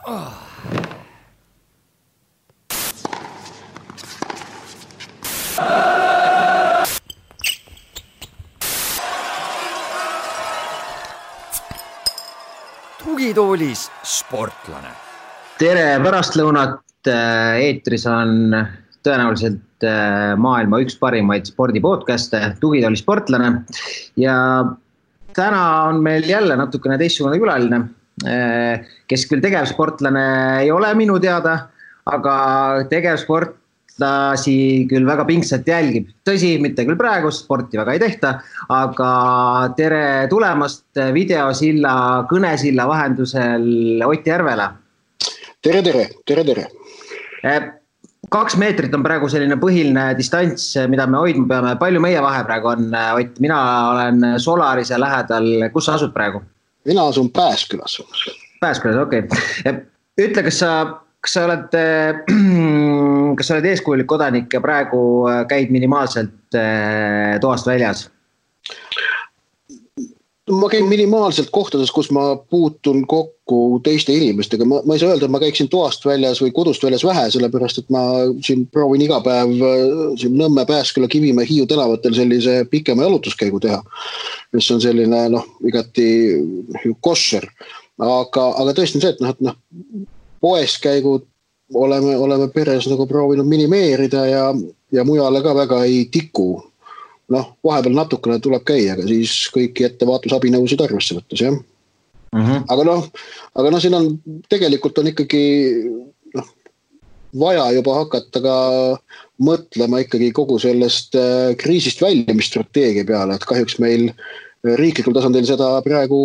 Tugitoolis sportlane. Tere pärastlõunat, eetris on tõenäoliselt maailma üks parimaid spordipodcaste, Tugitooli sportlane. Ja täna on meil jälle natukene teistsugune külaline, kes küll tegevsportlane ei ole minu teada, aga tegevsportlasi küll väga pingsalt jälgib. Tõsi, mitte küll praegu, sporti väga ei tehta, aga tere tulemast videosilla, kõnesilla vahendusel Ott Järvela. Tere. 2 meetrit on praegu selline põhiline distants, mida me hoidma peame. Palju meie vahe praegu on, Ott? Mina olen Solarise lähedal. Kus sa asud praegu? Mina asun Pääskülas. Pääskülas, okei. Ütle, kas sa oled eeskujulik kodanik ja praegu käid minimaalselt toast väljas? Ma käin minimaalselt kohtades, kus ma puutun kokku teiste inimestega. Ma ei saa öelda, et ma käiksin toast väljas või kodust väljas vähe, sellepärast, et ma siin proovin iga päev siin Nõmme, Pääsküla, Kivimäe, Hiiu tänavatel sellise pikema jalutuskäigu teha, mis on selline igati kosser. Aga tõesti on see, et poes käigud oleme peres proovinud minimeerida ja mujale ka väga ei tiku. Vahepeal natukene tuleb käia, aga siis kõiki ettevaatusabinõusid arvesse võttes, jah. Aga siin on tegelikult on ikkagi vaja juba hakata ka mõtlema ikkagi kogu sellest kriisist väljumisstrateegia peale, et kahjuks meil riiklikul tasandil seda praegu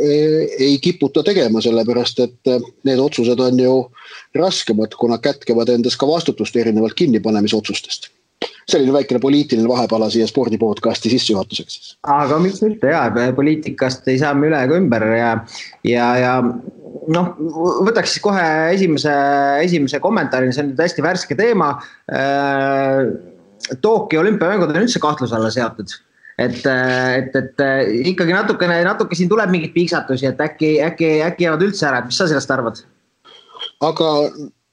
ei kiputa tegema, sellepärast, et need otsused on ju raskemad, kuna kätkevad endas ka vastutust erinevalt kinnipanemisotsustest. Selline väikene poliitiline vahepala siia spordipodcasti sissejuhatuseks. Aga miks mitte, poliitikast ei saa me üle ega ümber ja võtaks siis kohe esimese kommentaari, see on hästi värske teema. Tokyo olümpiamängud on üldse kahtluse alla seatud. Et ikkagi natuke siin tuleb mingit piiksatusi, et äkki jäävad üldse ära, et mis sa sellest arvad? Aga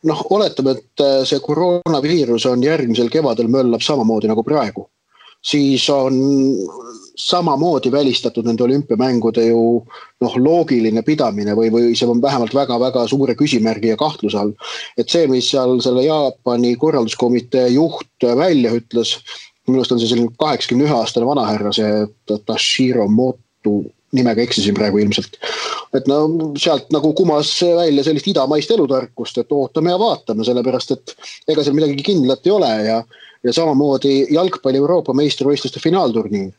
oletame, et see koroonaviirus on järgmisel kevadel möllab samamoodi nagu praegu. Siis on samamoodi välistatud nende olümpiamängude ju loogiline pidamine või see on vähemalt väga-väga suure küsimärgi ja kahtluse all. Et see, mis seal selle Jaapani korralduskomitee juht välja ütles, minust on see selline 81-aastane vanahärra, see Tashiro Moto, nimega eksisin praegu ilmselt. Et sealt kumas välja sellist idamaist elutarkust, et ootame ja vaatame, sellepärast, et ega seal midagi kindlat ei ole ja samamoodi jalgpalli Euroopa meistrivõistluste finaalturniir,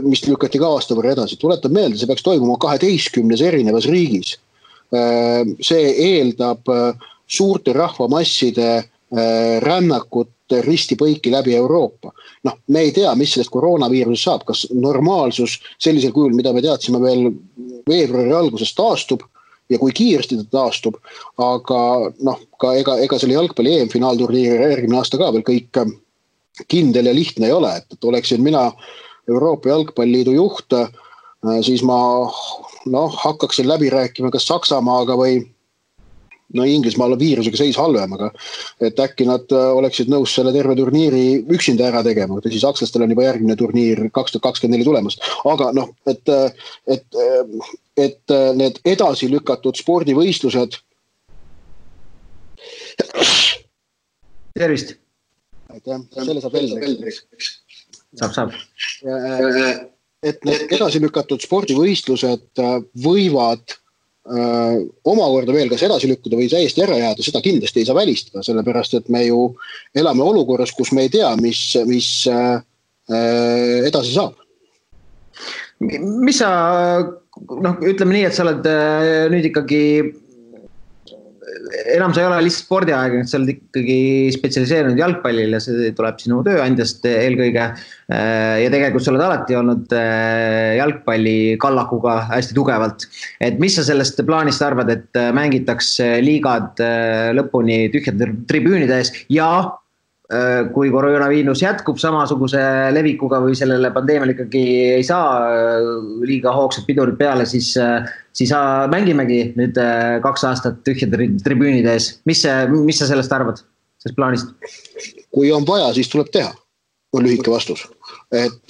mis lükati ka aasta võrra edasi. Tuletan meelde, see peaks toimuma 12 erinevas riigis. See eeldab suurte rahvamasside rännakut ristipõiki läbi Euroopa. Me ei tea, mis sellest koroonaviirusest saab, kas normaalsus sellisel kujul, mida me teadsime veel veebruari alguses taastub ja kui kiiresti ta taastub, aga ega selle jalgpalli EM-finaalturniiri järgmine aasta ka veel kõik kindel ja lihtne ei ole, et oleksin mina Euroopa Jalgpalliliidu juht, siis ma hakkaksin läbi rääkima kas Saksamaaga või Inglismaal on viirusega seis halvem, aga et äkki nad oleksid nõus selle terve turniiri üksinda ära tegema, siis sakslastel on juba järgmine turniir 2024 tulemas. Aga et need edasi lükatud spordivõistlused. Tervist! Aitäh, selle saab välja. Saab. Et need edasi lükatud spordivõistlused võivad omakorda veel kas edasi lükkuda või täiesti ära jääda, seda kindlasti ei saa välistada, sellepärast, et me ju elame olukorras, kus me ei tea, mis edasi saab. Mis sa, ütleme nii, et sa oled nüüd ikkagi, enam sa ei ole lihtsalt spordiaeg, sa oled ikkagi spetsialiseerinud jalgpallile, see tuleb sinu tööandjast eelkõige ja tegelikult sa oled alati olnud jalgpalli kallakuga hästi tugevalt. Et mis sa sellest plaanist arvad, et mängitaks liigad lõpuni tühjade tribüünide ees ja kui koroonaviirus jätkub samasuguse levikuga või sellele pandeemiale ikkagi ei saa liiga hoogsad pidurid peale, siis mängimegi nüüd 2 aastat tühjade tribüünide ees. Mis sa sellest arvad, sellest plaanist? Kui on vaja, siis tuleb teha, on lühike vastus. Et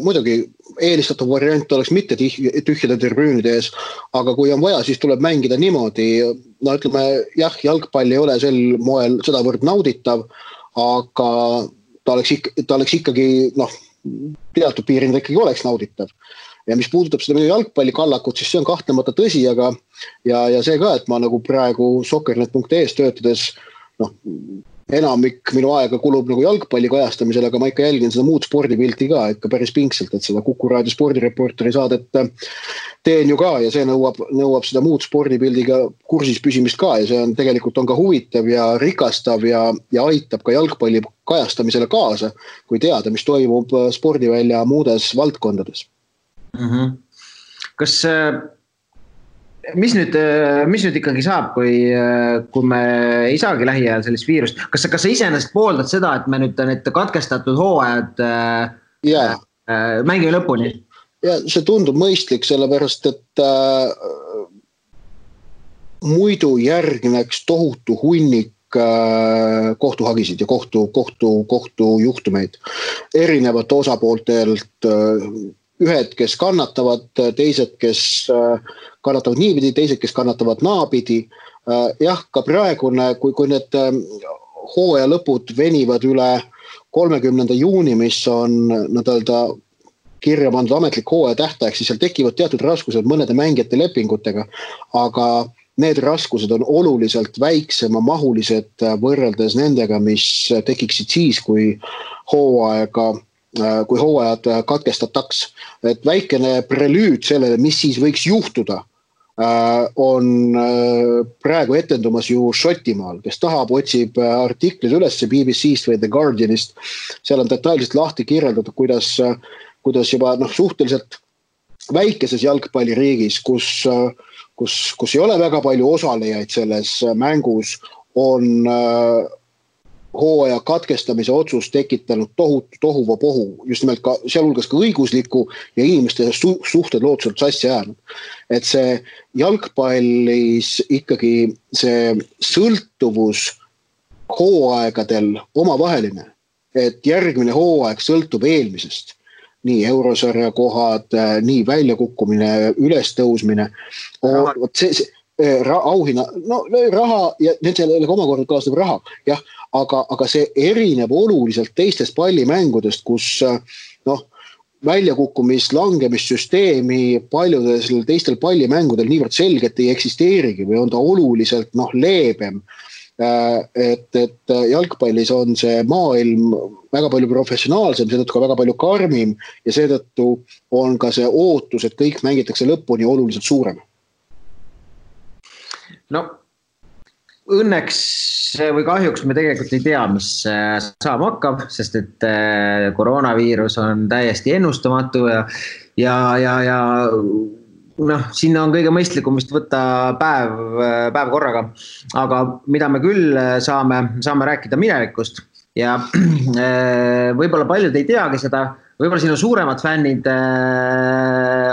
muidugi eelistatav variant oleks mitte tühjade tribüünide ees, aga kui on vaja, siis tuleb mängida niimoodi. No ütleme, jah, jalgpall ei ole sel moel sedavõrd nauditav, aga ta oleks ikkagi, teatud piiril ikkagi oleks nauditav. Ja mis puudutab seda minu jalgpallikallakut, siis see on kahtlemata tõsi, aga ja see ka, et ma nagu praegu soccernet.es töötades, enamik minu aega kulub nagu jalgpalli kajastamisel, aga ma ikka jälgin seda muud spordipilti ka ikka päris pingselt, et seda Kuku Raadio spordireporteri saadet teen ju ka ja see nõuab seda muud spordipildiga kursis püsimist ka ja see on tegelikult on ka huvitav ja rikastav ja aitab ka jalgpalli kajastamisele kaasa, kui teada, mis toimub spordivälja muudes valdkondades. Kas mis nüüd ikkagi saab, kui me ei saagi lähiajal sellist viirust? Kas sa iseenesest pooldad seda, et me nüüd need katkestatud hooajad mängime lõpuni? Ja see tundub mõistlik, sellepärast, et muidu järgneks tohutu hunnik kohtuhagisid ja kohtujuhtumeid erinevate osapooltelt, ühed, kes kannatavad, teised, kes kannatavad niipidi, teised, kes kannatavad naapidi. Jah, ka praegune, kui need hooaja lõpud venivad üle 30. juuni, mis on kirja pandud ametlik hooaja tähtaeg, siis seal tekivad teatud raskused mõnede mängijate lepingutega, aga need raskused on oluliselt väiksema mahulised võrreldes nendega, mis tekiksid siis, kui hooajad katkestataks. Et väikene prelüüd sellele, mis siis võiks juhtuda, on praegu etendumas ju Šotimaal, kes tahab, otsib artiklid üles BBC-st või The Guardianist. Seal on detailselt lahti kirjeldatud, kuidas juba suhteliselt väikeses jalgpalliriigis, kus ei ole väga palju osalejaid selles mängus, on hooaja katkestamise otsus tekitanud tohutu tohuvapohu, just nimelt ka sealhulgas ka õigusliku ja inimeste suhted lootuselt sassi jäänud. Et see jalgpallis ikkagi see sõltuvus hooaegadel omavaheline, et järgmine hooaeg sõltub eelmisest. Nii eurosarja kohad, nii väljakukkumine, ülestõusmine, auhinna, raha ja nendele omakorda kaasneb raha, jah, aga see erineb oluliselt teistest pallimängudest, kus väljakukkumist, langemissüsteemi paljudes teistel pallimängudel niivõrd selgelt ei eksisteerigi või on ta oluliselt leebem. Et jalgpallis on see maailm väga palju professionaalsem, seetõttu ka väga palju karmim ja seetõttu on ka see ootus, et kõik mängitakse lõpuni oluliselt suurem. Õnneks või kahjuks me tegelikult ei tea, mis saama hakkab, sest et koroonaviirus on täiesti ennustamatu ja sinna on kõige mõistlikum vist võtta päev korraga. Aga mida me küll saame rääkida minevikust ja võib-olla paljud ei teagi seda, võib-olla sinu suuremad fännid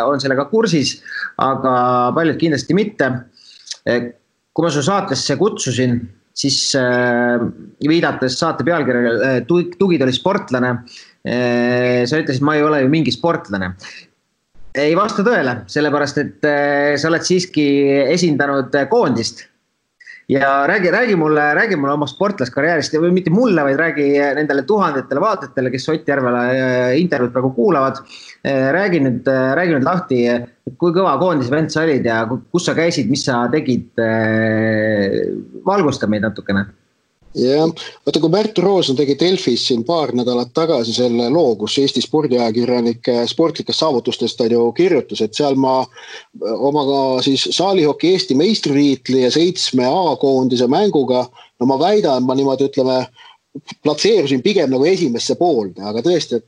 on sellega kursis, aga paljud kindlasti mitte. Kui ma su saatesse kutsusin, siis viidates saate pealkirjaga Tugid oli sportlane, sa ütlesid, ma ei ole ju mingi sportlane. Ei vasta tõele, sellepärast, et sa oled siiski esindanud koondist. Ja räägi mulle oma sportlaskarjäärist, või mitte mulle, vaid räägi nendele tuhandetele vaatajatele, kes Ott Järvela intervjuud praegu kuulavad. Räägi nüüd lahti, kui kõva koondise vend sa olid ja kus sa käisid, mis sa tegid, valgusta meid natukene. Ja, vaata kui Märt Roosna tegi Delfis siin paar nädalat tagasi selle loo, kus Eesti spordiajakirjanike sportlikest saavutustest on ju kirjutus, et seal ma omaga siis saalihoki Eesti meistritiitli ja 7 A-koondise mänguga, ma väidan, ma niimoodi ütleme, platseerusin pigem nagu esimesse poolde, aga tõesti,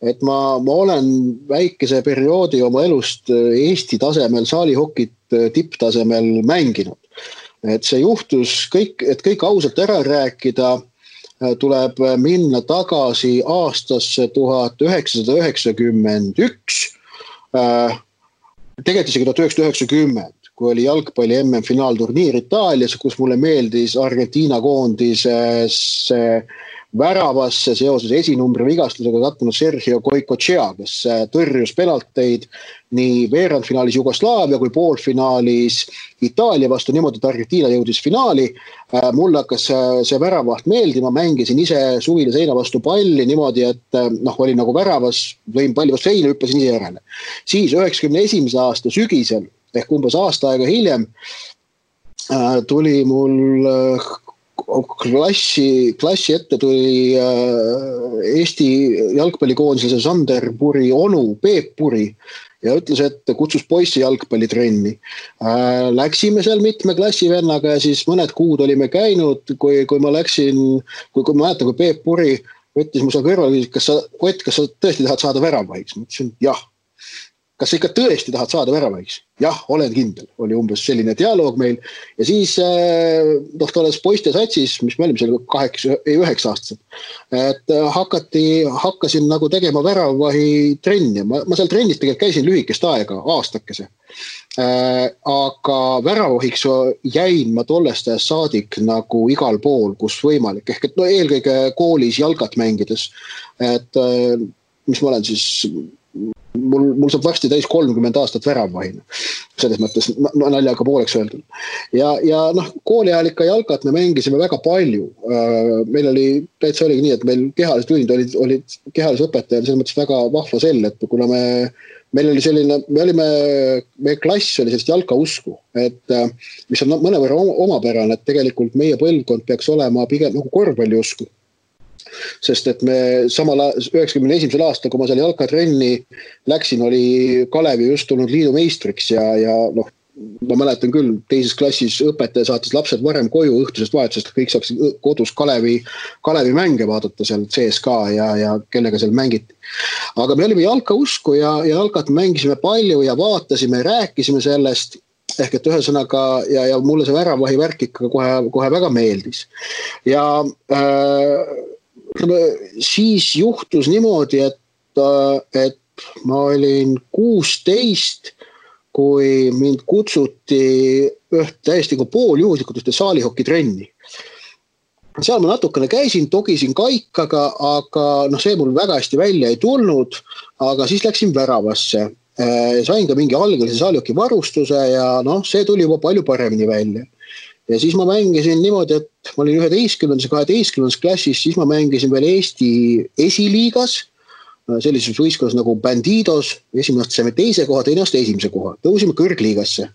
et ma olen väikese perioodi oma elust Eesti tasemel saalihokit tipptasemel mänginud. Et see juhtus kõik ausalt ära rääkida, tuleb minna tagasi aastasse 1991, tegelikult isegi 1990, kui oli jalgpalli MM-finaalturniir Itaalias, kus mulle meeldis Argentiina koondises väravasse seoses esinumbri vigastusega kattunud Sergio Goicoechea, kes tõrjus penalteid nii veerandfinaalis Jugoslaavia kui poolfinaalis Itaalia vastu niimoodi, et Argentiina jõudis finaali. Mulle hakkas see väravaht meeldima, mängisin ise suvile seina vastu palli niimoodi, et oli nagu väravas, lõin palli vastu seina, hüppasin ise järele. Siis 91. aasta sügisel ehk umbes aasta aega hiljem tuli mul klassi ette tuli Eesti jalgpallikoondise Sander Puri onu Peep Puri ja ütles, et kutsus poissi jalgpallitrenni. Läksime seal mitme klassivennaga ja siis mõned kuud olime käinud, kui ma läksin, kui ma mäletan, kui Peep Puri võttis mu seal kõrval, kas sa tõesti tahad saada väravaiks? Ma ütlesin, jah. Kas sa ikka tõesti tahad saada väravaiks? Jah, olen kindel. Oli umbes selline dialoog meil. Ja siis tolles poiste satsis, mis me olime seal 9 aastased, et hakkasin nagu tegema väravahi trenni. Ma seal trennis tegelikult käisin lühikest aega, aastakese. Aga väravahiks jäin ma tollest ajast saadik nagu igal pool, kus võimalik. Ehk et eelkõige koolis jalgat mängides. Et mis ma olen siis... Mul saab varsti täis 30 aastat väravvahina. Selles mõttes naljaga pooleks öeldud. Ja kooli ajal ikka jalgat me mängisime väga palju. Meil oli, täitsa oligi nii, et meil kehalised tunnid olid kehalise õpetajal selles mõttes väga vahva sell, et kuna meil oli selline, meie klass oli sellist jalkausku, et mis on mõnevõrra omapärane, et tegelikult meie põlvkond peaks olema pigem nagu korvpalliusku. Sest et me samal 91. aastal, kui ma seal jalkatrenni läksin, oli Kalevi just tulnud liidu meistriks ja ma mäletan küll, teises klassis õpetaja saatis lapsed varem koju õhtusest vahetusest, kõik saaks kodus Kalevi mänge vaadata seal CSK ja kellega seal mängiti. Aga me olime jalkausku ja jalkat mängisime palju ja vaatasime, rääkisime sellest, ehk et ühesõnaga ja mulle see väravahi värk ikka kohe väga meeldis. Ja siis juhtus niimoodi, et ma olin 16, kui mind kutsuti täiesti pooljuhuslikult ühte saalihokitrenni. Seal ma natukene käisin, togisin kaikaga, aga see mul väga hästi välja ei tulnud, aga siis läksin väravasse. Sain ka mingi algelise saalihoki varustuse ja see tuli juba palju paremini välja. Ja siis ma mängisin niimoodi, et ma olin 11. ja 12. klassis, siis ma mängisin veel Eesti esiliigas, sellises võistkonnas nagu Bandidos, esimene aasta saime 2. koha, teine aasta 1. koha. Tõusime kõrgliigasse.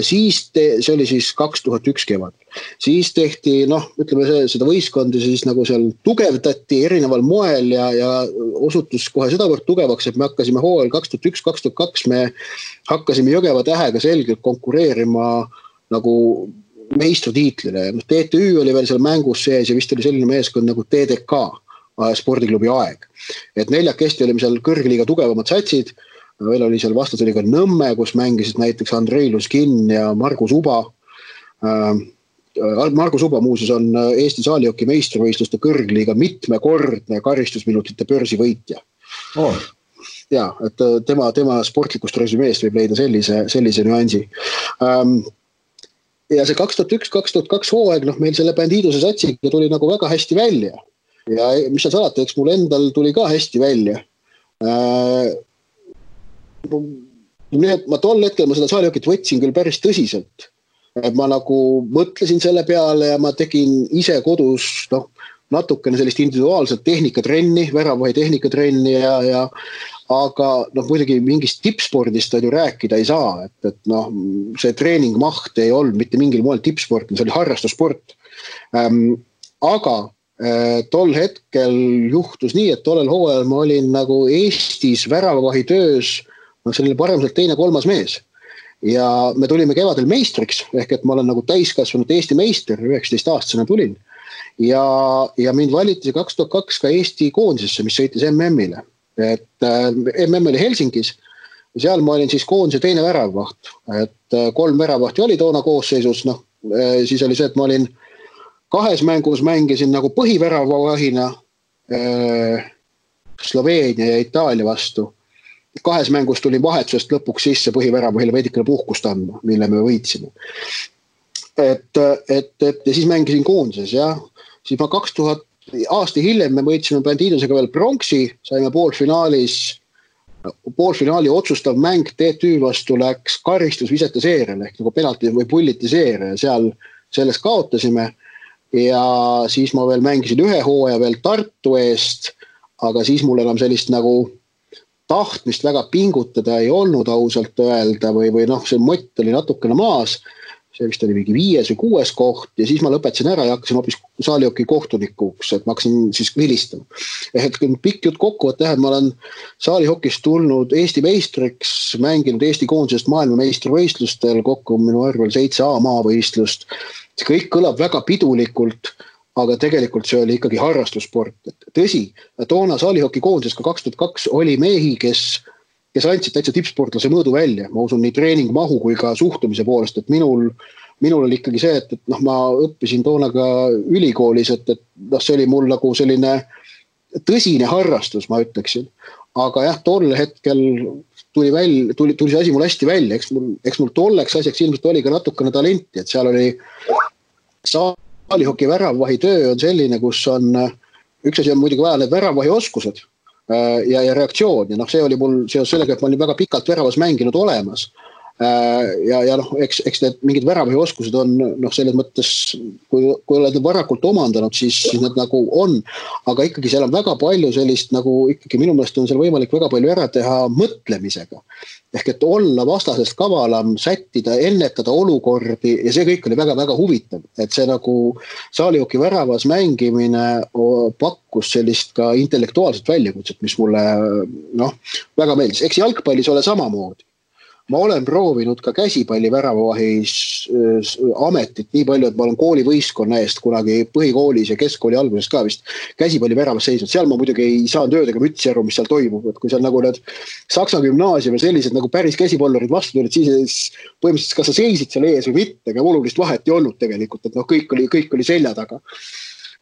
Siis see oli siis 2001 kevad. Siis tehti, ütleme seda võistkondi siis nagu seal tugevdati erineval moel ja osutus kohe sedavõrd tugevaks, et me hakkasime hooajal 2001-2002, me hakkasime Jõgeva Tähega selgelt konkureerima nagu meistritiitlile. TTÜ oli veel seal mängus sees ja vist oli selline meeskond nagu TDK, spordiklubi Aeg. Et 4 olime seal kõrgliiga tugevamad satsid, veel oli seal vastas oli ka Nõmme, kus mängisid näiteks Andrei Luskin ja Margus Uba. Margus Uba muuseas on Eesti saalihoki meistrivõistluste kõrgliiga mitmekordne karistusminutite börsivõitja. Oh. Ja, et tema sportlikust resümeest võib leida sellise nüansi. Ja see 2001-2002 hooaeg, meil selle Bandidose satsiga tuli nagu väga hästi välja. Ja mis seal salata, eks mul endal tuli ka hästi välja. Ma tol hetkel seda saalihokit võtsin küll päris tõsiselt. Ma nagu mõtlesin selle peale ja ma tegin ise kodus natukene sellist individuaalset tehnikatrenni, väravahi tehnikatrenni aga muidugi mingist tippspordist ju rääkida ei saa, et see treeningmaht ei olnud mitte mingil moel tippsport, see oli harrastussport. Aga tol hetkel juhtus nii, et tollel hooajal ma olin nagu Eestis väravahi töös selline paremselt 2-3 mees. Ja me tulime kevadel meistriks, ehk et ma olen nagu täiskasvanud Eesti meister, 19-aastasena tulin. Ja mind valiti 2002 ka Eesti koondisesse, mis sõitis MM-ile. Et MM oli Helsingis ja seal ma olin siis koondise teine väravvaht. Et 3 väravvahti oli toona koosseisus, siis oli see, et ma olin 2 mängus mängisin nagu põhiväravavahina Sloveenia ja Itaalia vastu. 2 mängus tuli vahetusest lõpuks sisse põhiväravahile veidikene puhkust andma, mille me võitsime. Ja siis mängisin koondises, jah. Siis ma 2000 aasta hiljem me võitsime Bandiidosega veel pronksi, saime poolfinaali otsustav mäng TTÜ vastu läks karistusvisete seeriale ehk nagu penalti või pulliti seeria ja seal selles kaotasime ja siis ma veel mängisin 1 hooaja veel Tartu eest, aga siis mul enam sellist nagu tahtmist väga pingutada ei olnud ausalt öelda või noh, see mott oli natukene maas. See vist oli mingi 5. või 6. koht ja siis ma lõpetasin ära ja hakkasin hoopis saalihoki kohtunikuks, et ma hakkasin siis vilistama. Et pikk jutt kokkuvõtte, et ma olen saalihokist tulnud Eesti meistriks, mänginud Eesti koondisest maailmameistrivõistlustel, kokku minu arvel 7 A-maavõistlust. See kõik kõlab väga pidulikult, aga tegelikult see oli ikkagi harrastussport. Tõsi, toona saalihoki koondises ka 2002 oli mehi, kes andsid täitsa tippsportlase mõõdu välja. Ma usun nii treeningmahu kui ka suhtumise poolest, et minul oli ikkagi see, et noh, ma õppisin toona ka ülikoolis, et noh, see oli mul nagu selline tõsine harrastus, ma ütleksin. Aga jah, tol hetkel tuli see asi mul hästi välja, eks mul tolleks asjaks ilmselt oli ka natukene talenti, et seal oli saalihoki väravvahi töö on selline, kus on, üks asi on muidugi vaja need väravvahi oskused, ja reaktsioon ja noh, see oli mul seos sellega, et ma olin väga pikalt väravas mänginud olemas ja noh, eks need mingid väravvahi oskused on noh, selles mõttes, kui oled varakult omandanud, siis need nagu on, aga ikkagi seal on väga palju sellist nagu ikkagi minu meelest on seal võimalik väga palju ära teha mõtlemisega. Ehk et olla vastasest kavalam, sättida, ennetada olukordi ja see kõik oli väga-väga huvitav, et see nagu saalihoki väravas mängimine pakkus sellist ka intellektuaalset väljakutset, mis mulle noh, väga meeldis. Eks jalgpallis ole samamoodi. Ma olen proovinud ka käsipalli väravavahis ametit nii palju, et ma olen koolivõistkonna eest kunagi põhikoolis ja keskkooli alguses ka vist käsipalli väravas seisnud. Seal ma muidugi ei saanud öödega mütsi aru, mis seal toimub. Et kui seal nagu need Saksa gümnaasium ja sellised nagu päris käsipallurid vastu tulid, siis põhimõtteliselt kas sa seisid seal ees või mitte, aga olulist vahet ei olnud tegelikult, et noh, kõik oli selja taga.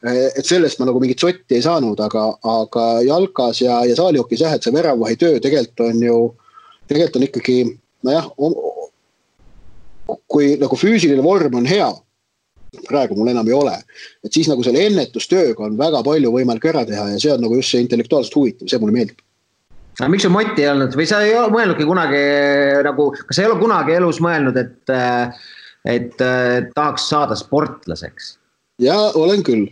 Et sellest ma nagu mingit sotti ei saanud, aga jalkas ja saalihokis jah, et see väravvahi töö tegelikult on ikkagi nojah, kui nagu füüsiline vorm on hea, praegu mul enam ei ole, et siis nagu selle ennetustööga on väga palju võimalik ära teha ja see on nagu just see intellektuaalselt huvitav, see mulle meeldib. Aga miks su moti ei olnud või sa ei ole mõelnudki kunagi nagu, kas sa ei ole kunagi elus mõelnud, et tahaks saada sportlaseks? Ja olen küll.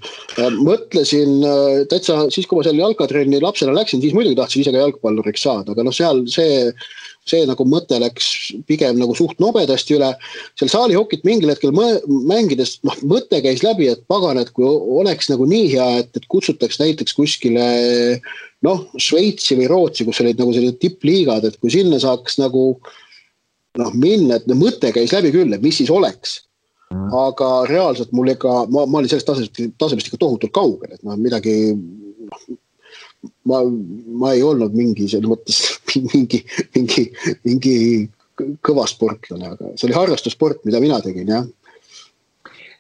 Mõtlesin täitsa siis, kui ma seal jalkatrenni lapsena läksin, siis muidugi tahtsin ise ka jalgpalluriks saada, aga noh, seal see nagu mõte läks pigem nagu suht nobedasti üle. Seal saalihokit mingil hetkel mängides mõte käis läbi, et pagan, et kui oleks nagu nii hea, et kutsutaks näiteks kuskile Šveitsi või Rootsi, kus olid nagu sellised tippliigad, et kui sinna saaks nagu minna, et mõte käis läbi küll, et mis siis oleks. Aga reaalselt mul ma olin sellest tasemest ikka tohutult kaugel, et midagi ma ei olnud mingi selles mõttes mingi kõva sportlane, aga see oli harrastussport, mida mina tegin, jah.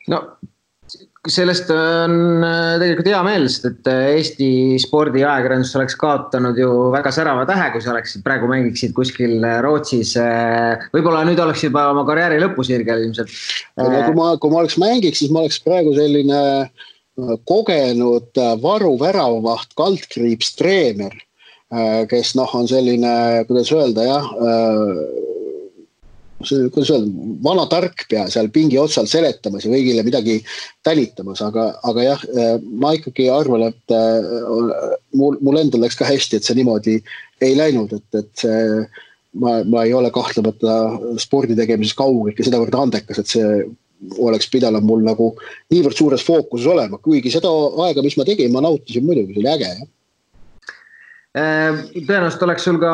No sellest on tegelikult hea meel, sest et Eesti spordi ajakirjandus oleks kaotanud ju väga särava tähe, kui sa oleksid praegu mängiksid kuskil Rootsis. Võib-olla nüüd oleks juba oma karjääri lõpusirgel ilmselt. Kui ma oleks mängiks, siis ma oleks praegu selline kogenud varuväravavaht, kaldkriips treener, kes on selline, kuidas öelda, jah, vana tarkpea seal pingi otsal seletamas ja kõigile midagi tänitamas, aga jah, ma ikkagi arvan, et mul endal läks ka hästi, et see niimoodi ei läinud, et ma ei ole kahtlemata spordi tegemises kaugelt ja sedavõrd andekas, et see oleks pidanud mul nagu niivõrd suures fookuses olema, kuigi seda aega, mis ma tegin, ma nautisin muidugi, see oli äge. Tõenäoliselt oleks sul ka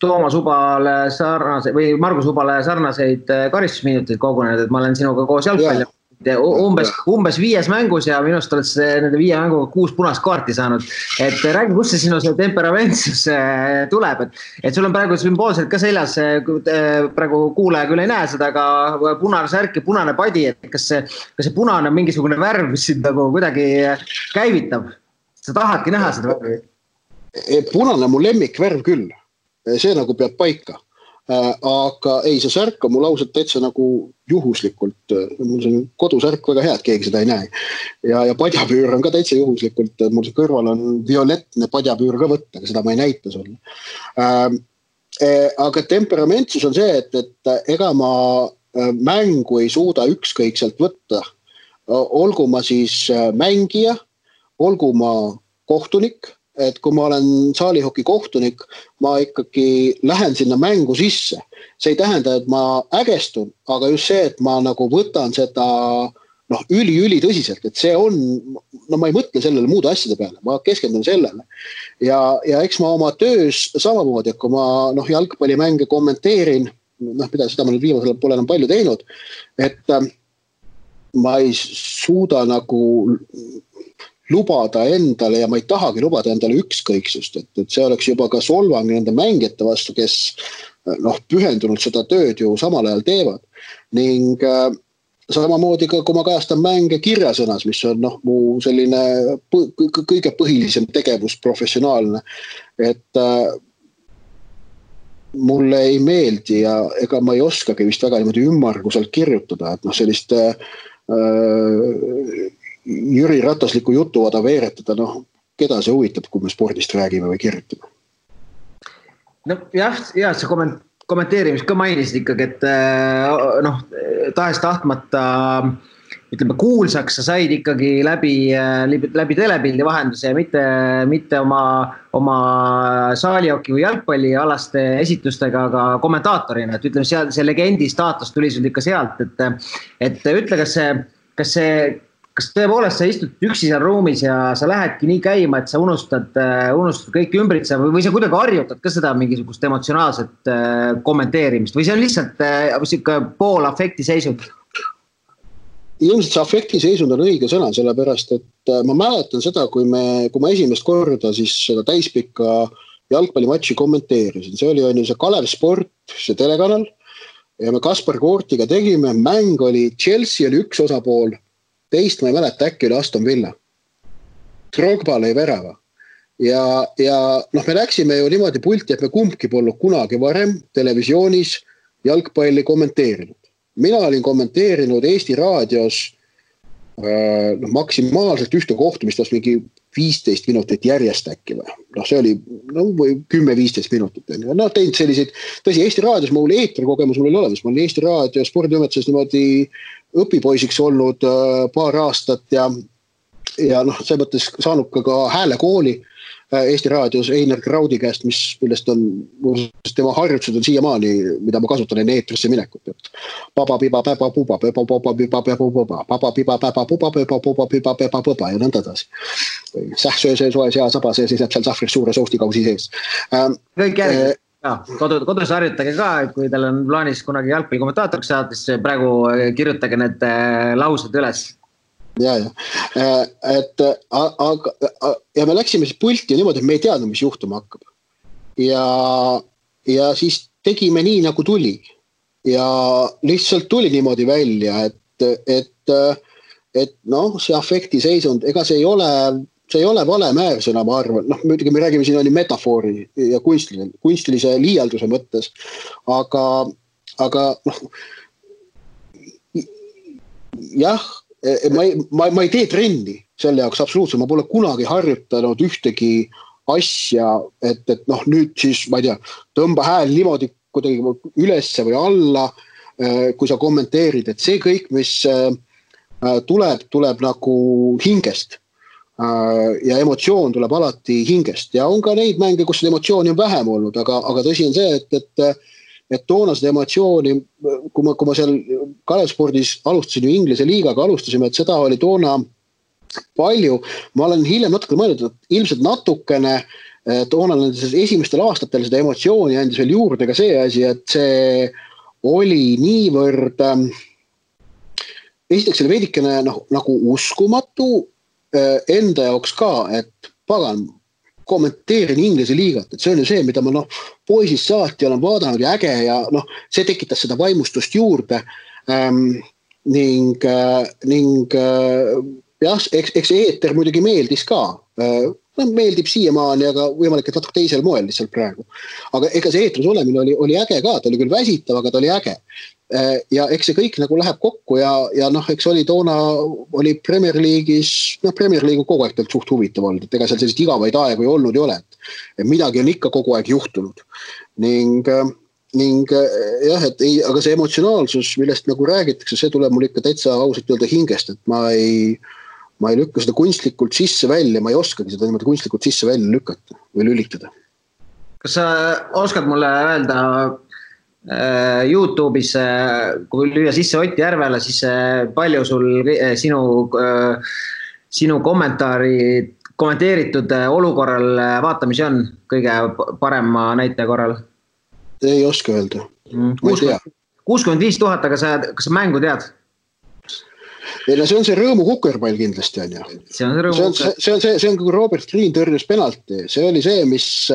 Toomas Ubale sarnaseid või Margus Ubale sarnaseid karistusminuteid kogunenud, et ma olen sinuga koos jalgpalli umbes 5 mängus ja minust oled nende 5 mänguga 6 punast kaarti saanud. Et räägi, kust see sinu see temperamentsus tuleb, et sul on praegu sümboolselt ka seljas, praegu kuulaja küll ei näe seda, aga punane särk ja punane padi, et kas see punane on mingisugune värv, mis sind nagu kuidagi käivitab? Sa tahadki näha seda värvi? Punane on mu lemmikvärv küll, see nagu peab paika. Aga ei, see särk on mul ausalt täitsa nagu juhuslikult, mul see kodusärk väga hea, et keegi seda ei näe. Ja padjapüür on ka täitsa juhuslikult, mul see kõrval on violettne padjapüür ka võtta, aga seda ma ei näita sulle. Aga temperamentsus on see, et ega ma mängu ei suuda ükskõikselt võtta. Olgu ma siis mängija, olgu ma kohtunik, et kui ma olen saalihoki kohtunik, ma ikkagi lähen sinna mängu sisse. See ei tähenda, et ma ägestun, aga just see, et ma nagu võtan seda üli tõsiselt, et see on, ma ei mõtle sellele muude asjade peale, ma keskendun sellele. Ja eks ma oma töös samamoodi, et kui ma jalgpallimänge kommenteerin, seda ma nüüd viimasel pole enam palju teinud, et ma ei suuda nagu lubada endale ja ma ei tahagi lubada endale ükskõiksust, et see oleks juba ka solvang nende mängijate vastu, kes pühendunult seda tööd ju samal ajal teevad. Ning samamoodi ka, kui ma kajastan mänge kirjasõnas, mis on mu selline kõige põhilisem tegevus professionaalne, et mulle ei meeldi ja ega ma ei oskagi vist väga niimoodi ümmarguselt kirjutada, et sellist Jüri Ratasliku jutuvada veeretada, keda see huvitab, kui me spordist räägime või kirjutame? Jah, see kommenteerimist ka mainisid ikkagi, et tahes tahtmata kuulsaks sa said ikkagi läbi telepildi vahenduse ja mitte oma saalihoki või jalgpallialaste esitustega, aga kommentaatorina, et ütleme, see legendi staatus tuli sul ikka sealt, et ütle, kas tõepoolest sa istud üksi seal ruumis ja sa lähedki nii käima, et sa unustad kõik ümbritse või sa kuidagi harjutad ka seda mingisugust emotsionaalset kommenteerimist või see on lihtsalt pool afekti seisund? Ilmselt see afekti seisund on õige sõna, sellepärast, et ma mäletan seda, kui ma esimest korda siis seda täispikka jalgpallimatši kommenteerisin. See oli see Kalev Sport, see telekanal ja me Kaspar Koortiga tegime, mäng oli Chelsea oli üks osapool, teist ma ei mäleta, äkki oli Aston Villa. Drogba lõi värava. Ja me läksime ju niimoodi pulti, et me kumbki polnud kunagi varem televisioonis jalgpalli kommenteerinud. Mina olin kommenteerinud Eesti raadios maksimaalselt ühte kohtumist, mingi 15 minutit järjest äkki või. See oli 10-15 minutit. Teinud selliseid, tõsi, Eesti raadios mul eetrikogemus mul oli olemas. Ma olin Eesti raadio spordiümetuses niimoodi õpipoisiks olnud paar aastat ja see mõttes saanud ka häälekooli Eesti raadios Einar Kraudi käest, millest on tema harjutused on siiamaani, mida ma kasutan enne eetrisse minekut. Papa piba päba puba, papa piba päba puba, papa piba päba puba, papa piba päba puba ja nõnda edasi. Sähsöö see soe sea saba, see seisab seal sahvris suure soustikausi sees. Kõik järgi. Kodus harjutage ka, kui teil on plaanis kunagi jalgpalli kommentaatoriks saada, siis praegu kirjutage need laused üles. Ja me läksime siis pulti ja niimoodi, et me ei teadnud, mis juhtuma hakkab. Ja siis tegime nii, nagu tuli. Ja lihtsalt tuli niimoodi välja, et see afekti seisund, ega see ei ole vale määrsõna, ma arvan. Muidugi me räägime siin oli metafoori ja kunstilise liialduse mõttes, aga jah, ma ei tee trenni selle jaoks absoluutselt, ma pole kunagi harjutanud ühtegi asja, et nüüd siis, ma ei tea, tõmba hääl niimoodi kuidagi ülesse või alla, kui sa kommenteerid, et see kõik, mis tuleb nagu hingest ja emotsioon tuleb alati hingest ja on ka neid mänge, kus emotsiooni on vähem olnud, aga tõsi on see, et toona seda emotsiooni, kui ma seal Kalev Spordis alustasin ju Inglise liigaga alustasime, et seda oli toona palju. Ma olen hiljem natuke mõelnud, et ilmselt natukene toona esimestel aastatel seda emotsiooni andis veel juurde ka see asi, et see oli niivõrd esiteks oli veidikene nagu uskumatu enda jaoks ka, et pagan, kommenteerin Inglise liigat, et see on ju see, mida ma poisist saati olen vaadanud ja äge ja see tekitas seda vaimustust juurde ning jah, eks see eeter muidugi meeldis ka, meeldib siiamaani, aga võimalik, et natuke teisel moel lihtsalt praegu. Aga ega see eetris olemine oli äge ka, ta oli küll väsitav, aga ta oli äge. Ja eks see kõik nagu läheb kokku ja eks oli toona oli Premier League'is, Premier League on kogu aeg suht huvitav olnud, et ega seal sellised igavaid aegu ei olnud ei ole, et midagi on ikka kogu aeg juhtunud ning jah, et ei, aga see emotsionaalsus, millest nagu räägitakse, see tuleb mul ikka täitsa ausalt öelda hingest, et ma ei lükka seda kunstlikult sisse välja, ma ei oskagi seda niimoodi kunstlikult sisse välja lükata või lülitada. Kas sa oskad mulle öelda YouTube'is, kui lüüa sisse Ott Järvele, siis palju sul sinu kommenteeritud olukorral vaatamisi on kõige parema näite korral? Ei oska öelda. 65 000, aga kas sa mängu tead? See on see rõõmu kukerpall kindlasti on ju. See on kui Robert Green tõrjus penalti. See oli see, mis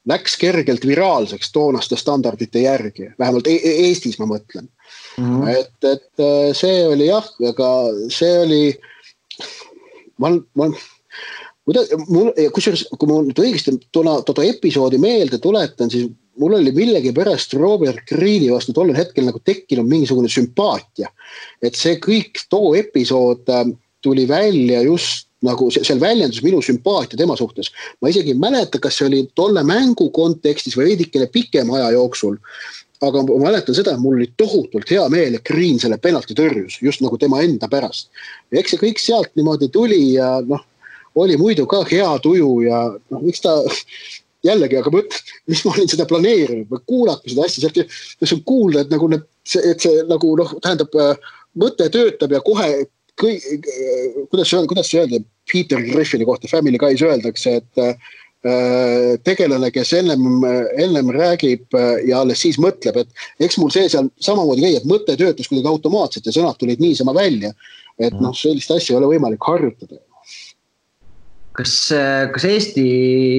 läks kergelt viraalseks toonaste standardite järgi. Vähemalt Eestis ma mõtlen. Et see oli jah, aga see oli kusjuures, kui ma nüüd õigesti toda episoodi meelde tuletan, siis mul oli millegi pärast Robert Greeni vastu tollel hetkel nagu tekkinud mingisugune sümpaatia. Et see kõik too episood tuli välja just nagu seal väljendus minu sümpaatia tema suhtes. Ma isegi ei mäleta, kas see oli tolle mängu kontekstis või veidikene pikem aja jooksul. Aga ma mäletan seda, et mul oli tohutult hea meel, et Green selle penalti tõrjus, just nagu tema enda pärast. Ja eks see kõik sealt niimoodi tuli ja oli muidu ka hea tuju ja miks ta jällegi, aga mis ma olin seda planeerinud või kuulata seda asja, sealt on kuulda, et see nagu tähendab, mõte töötab ja kohe kuidas see öelda, Peter Griffini kohta Family Guy's öeldakse, et tegelane, kes ennem räägib ja alles siis mõtleb, et eks mul see seal samamoodi käi, et mõte töötus kuidagi automaatselt ja sõnad tulid niisama välja, et sellist asja ei ole võimalik harjutada. Kas Eesti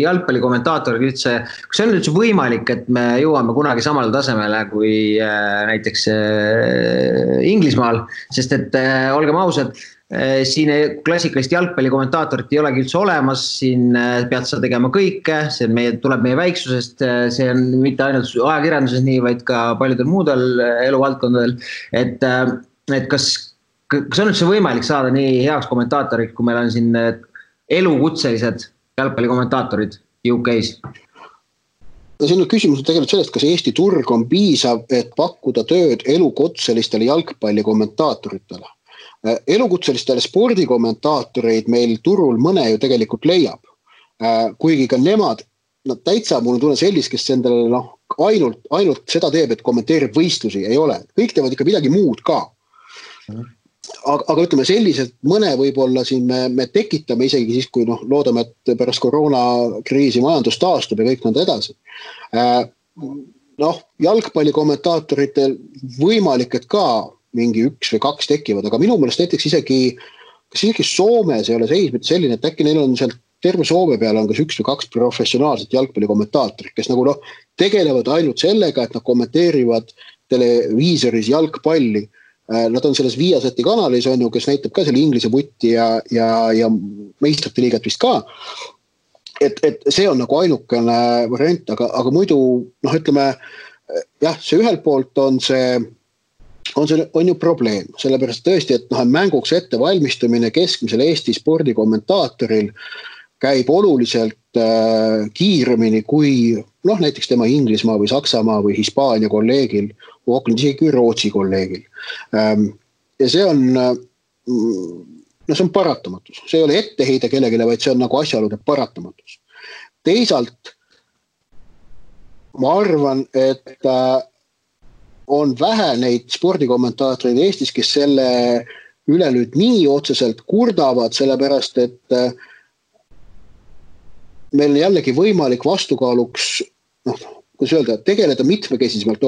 jalgpallikommentaatorid üldse, kas see on üldse võimalik, et me jõuame kunagi samale tasemele kui näiteks Inglismaal, sest et olgem ausad, siin klassikalist jalgpallikommentaatorit ei olegi üldse olemas, siin pead sa tegema kõike, see tuleb meie väiksusest, see on mitte ainult ajakirjanduses nii, vaid ka paljudel muudel eluvaldkondadel, et kas on üldse võimalik saada nii heaks kommentaatoriks, kui meil on siin elukutselised jalgpallikommentaatorid UK-s? Siin on küsimus tegelikult sellest, kas Eesti turg on piisav, et pakkuda tööd elukutselistele jalgpallikommentaatoritele. Elukutselistele spordikommentaatoreid meil turul mõne ju tegelikult leiab. Kuigi ka nemad, täitsa mul tunne sellist, kes endale ainult seda teeb, et kommenteerib võistlusi, ei ole. Kõik teevad ikka midagi muud ka. Aga ütleme selliselt mõne võib-olla siin me tekitame isegi siis, kui loodame, et pärast koroonakriisi majandus taastub ja kõik nõnda edasi. Jalgpallikommentaatoritel võimalik, et ka mingi 1 või 2 tekivad, aga minu meelest näiteks isegi Soomes ei ole seis mitte selline, et äkki neil on seal terve Soome peale on kas 1 või 2 professionaalset jalgpallikommentaatorit, kes nagu tegelevad ainult sellega, et nad kommenteerivad televiisoris jalgpalli. Nad on selles Viasati kanalis, on ju, kes näitab ka selle Inglise vutti ja meistrite liigat vist ka. Et see on nagu ainukene variant, aga muidu, ütleme, jah, see ühelt poolt on ju probleem, sellepärast tõesti, et mänguks ette valmistumine keskmisel Eesti spordikommentaatoril käib oluliselt kiiremini kui näiteks tema Inglismaa või Saksamaa või Hispaania kolleegil, isegi kui Rootsi kolleegil. Ja see on paratamatus. See ei ole etteheide kellegile, vaid see on nagu asjaolude paratamatus. Teisalt ma arvan, et on vähe neid spordikommentaatoreid Eestis, kes selle üle nüüd nii otseselt kurdavad, sellepärast, et meil on jällegi võimalik vastukaaluks, kuidas öelda, tegeleda mitmekesisemalt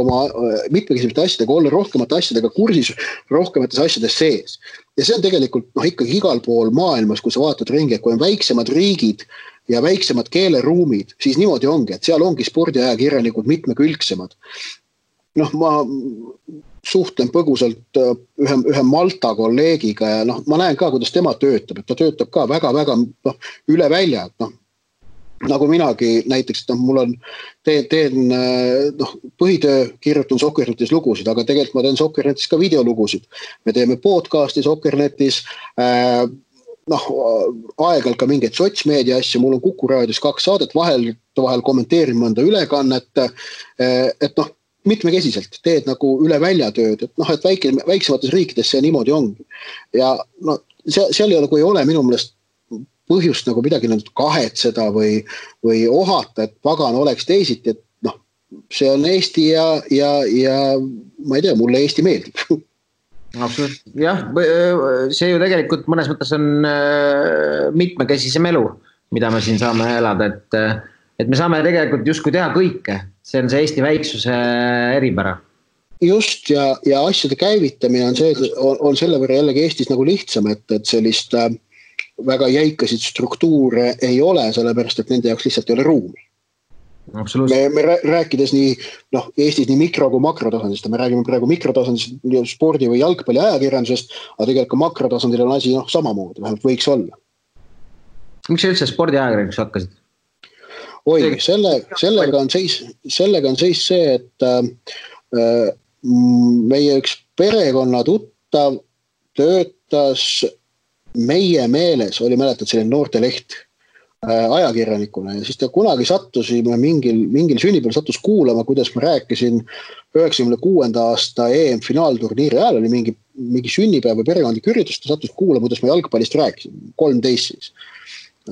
asjadega, olla rohkemate asjadega kursis, rohkemates asjades sees. Ja see on tegelikult ikkagi igal pool maailmas, kui sa vaatad ringi, et kui on väiksemad riigid ja väiksemad keeleruumid, siis niimoodi ongi, et seal ongi spordiajakirjanikud mitmekülgsemad. Ma suhtlen põgusalt ühe Malta kolleegiga ja ma näen ka, kuidas tema töötab, et ta töötab ka väga-väga üle välja, nagu minagi näiteks, mul on, teen põhitöö, kirjutan Soccernetis lugusid, aga tegelikult ma teen Soccernetis ka videolugusid. Me teeme podcasti Soccernetis, aeg-ajalt ka mingeid sotsmeedia asju, mul on Kuku raadios 2 saadet, vahel kommenteerin mõnda ülekannet, et mitmekesiselt teed nagu üle välja tööd, et väiksemates riikides see niimoodi ongi. Ja seal ei ole minu meelest põhjust nagu midagi kahetseda või ohata, et pagan oleks teisiti, et see on Eesti ja ma ei tea, mulle Eesti meeldib. Absoluutselt, jah, see ju tegelikult mõnes mõttes on mitmekesisem elu, mida me siin saame elada, et me saame tegelikult justkui teha kõike, see on see Eesti väiksuse eripära. Just ja asjade käivitamine on selle võrra jällegi Eestis nagu lihtsam, et sellist väga jäikasid struktuure ei ole, sellepärast, et nende jaoks lihtsalt ei ole ruumi. Me rääkides Eestis nii mikro- kui makrotasandist, me räägime praegu mikrotasandist spordi või jalgpalli ajakirjandusest, aga tegelikult ka makrotasandil on asi samamoodi, vähemalt võiks olla. Miks sa üldse spordi ajakirjandus hakkasid? Oi, sellega on seis see, et meie üks perekonna tuttav töötas meie meeles, oli mäletad selline noorteleht ajakirjanikuna ja siis ta kunagi sattusime mingil sünnipäeval sattus kuulama, kuidas ma rääkisin 96. aasta EM-finaalturniiri ajal oli mingi sünnipäev või perekondlik üritus, ta sattus kuulama, kuidas ma jalgpallist rääkisin, 13 siis.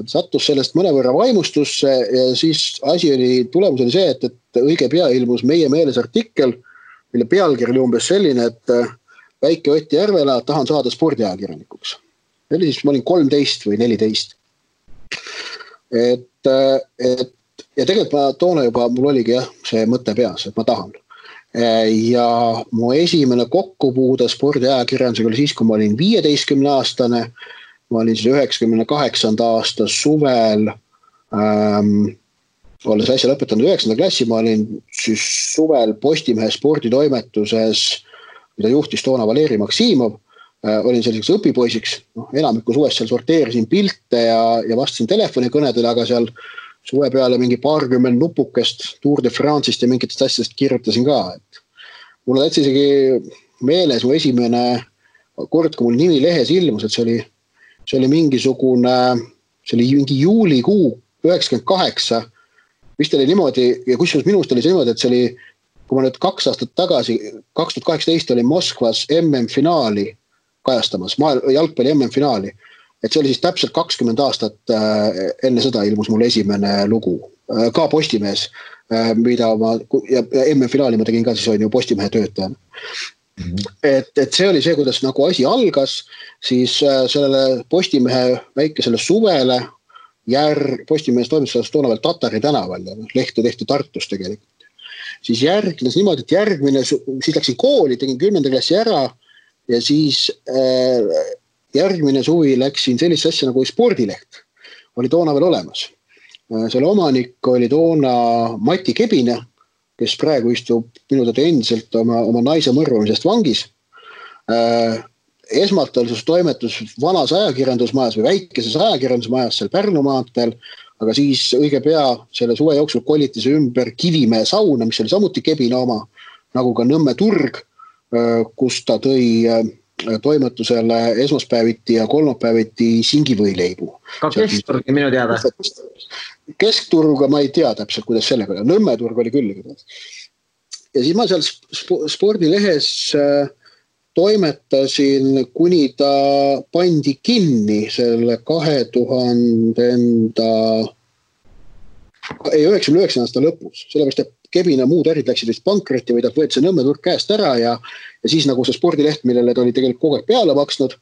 Sattus sellest mõnevõrra vaimustusse ja siis tulemus oli see, et õige pea ilmus meie meeles artikkel, mille pealkiri oli umbes selline, et väike Ott Järvela, tahan saada spordiajakirjanikuks. Ma olin 13 või 14. Ja tegelikult ma toona juba, mul oligi see mõte peas, et ma tahan. Ja mu esimene kokkupuude spordiajakirjandusega oli siis, kui ma olin 15-aastane, ma olin siis 98. aasta suvel, olles äsja lõpetanud 9. klassi, ma olin siis suvel Postimehe sporditoimetuses, mida juhtis toona Valeri Maksimov, olin selliseks õpipoisiks, enamiku suvest seal sorteerisin pilte ja vastasin telefonikõnedele, aga seal suve peale mingi 20 nupukest Tour de France'ist ja mingitest asjadest kirjutasin ka. Mul on isegi meeles mu esimene kord, kui mul nimi lehes ilmus, et see oli mingi juulikuu 98, vist oli niimoodi, ja kusjuures minust oli see niimoodi, et see oli, kui ma nüüd 2 aastat tagasi, 2018 oli Moskvas MM-finaali kajastamas, jalgpalli MM-finaali, et see oli siis täpselt 20 aastat enne seda ilmus mul esimene lugu, ka Postimehes, mida ja MM-finaali ma tegin ka siis on ju Postimehe töötajana. Et see oli see, kuidas nagu asi algas, siis sellele Postimehe väikesele suvele Postimehes toimetuses toona veel Tatari tänaval ja lehte tehti Tartus tegelikult. Siis järgnes niimoodi, et siis läksin kooli, tegin 10. klassi ära ja siis järgmine suvi läksin sellist asja nagu spordileht. Oli toona veel olemas. Selle omanik oli toona Mati Kebine, kes praegu istub minu teada endiselt oma naise mõrvamisest vangis. Esmalt oli toimetus vanas ajakirjandusmajas või väikeses ajakirjandusmajas seal Pärnu maanteel, aga siis õige pea selle suve jooksul koliti see ümber Kivimäe sauna, mis oli samuti Kebine oma, nagu ka Nõmme turg, kus ta tõi toimetusele esmaspäeviti ja kolmapäeviti singivõileibu. Ka keskturg minu teada. Keskturga ma ei tea täpselt, kuidas sellega oli. Nõmme turg oli küll. Ja siis ma seal spordilehes toimetasin, kuni ta pandi kinni selle 99 aasta lõpus. Sellepärast, et Kebine muud ärid läksid vist pankrotti või ta võeti see Nõmme turg käest ära ja siis nagu see spordileht, millele ta oli tegelikult kogu aeg peale maksnud,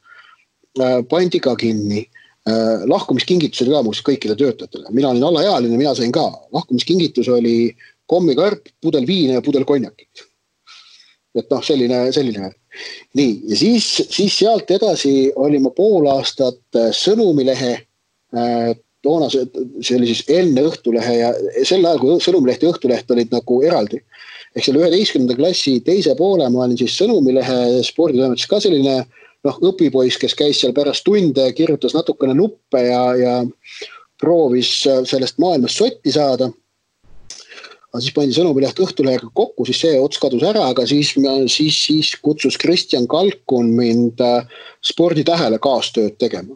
pandi ka kinni. Lahkumiskingitus oli ka muuseas kõikide töötajatele. Mina olin alaealine, mina sain ka. Lahkumiskingitus oli kommikarp, pudel viina ja pudel konjakit. Et noh, selline. Nii, ja siis sealt edasi oli ma pool aastat Sõnumilehe, toona see oli siis enne Õhtulehe ja sel ajal, kui Sõnumileht ja Õhtuleht olid nagu eraldi. Ehk selle 11. klassi teise poole ma olin siis Sõnumilehe sporditoimetuses ka selline õpipoiss, kes käis seal pärast tunde, kirjutas natukene nuppe ja proovis sellest maailmast sotti saada. Aga siis pandi Sõnumileht Õhtulehega kokku, siis see ots kadus ära, aga siis kutsus Kristjan Kalkun mind Sporditähele kaastööd tegema,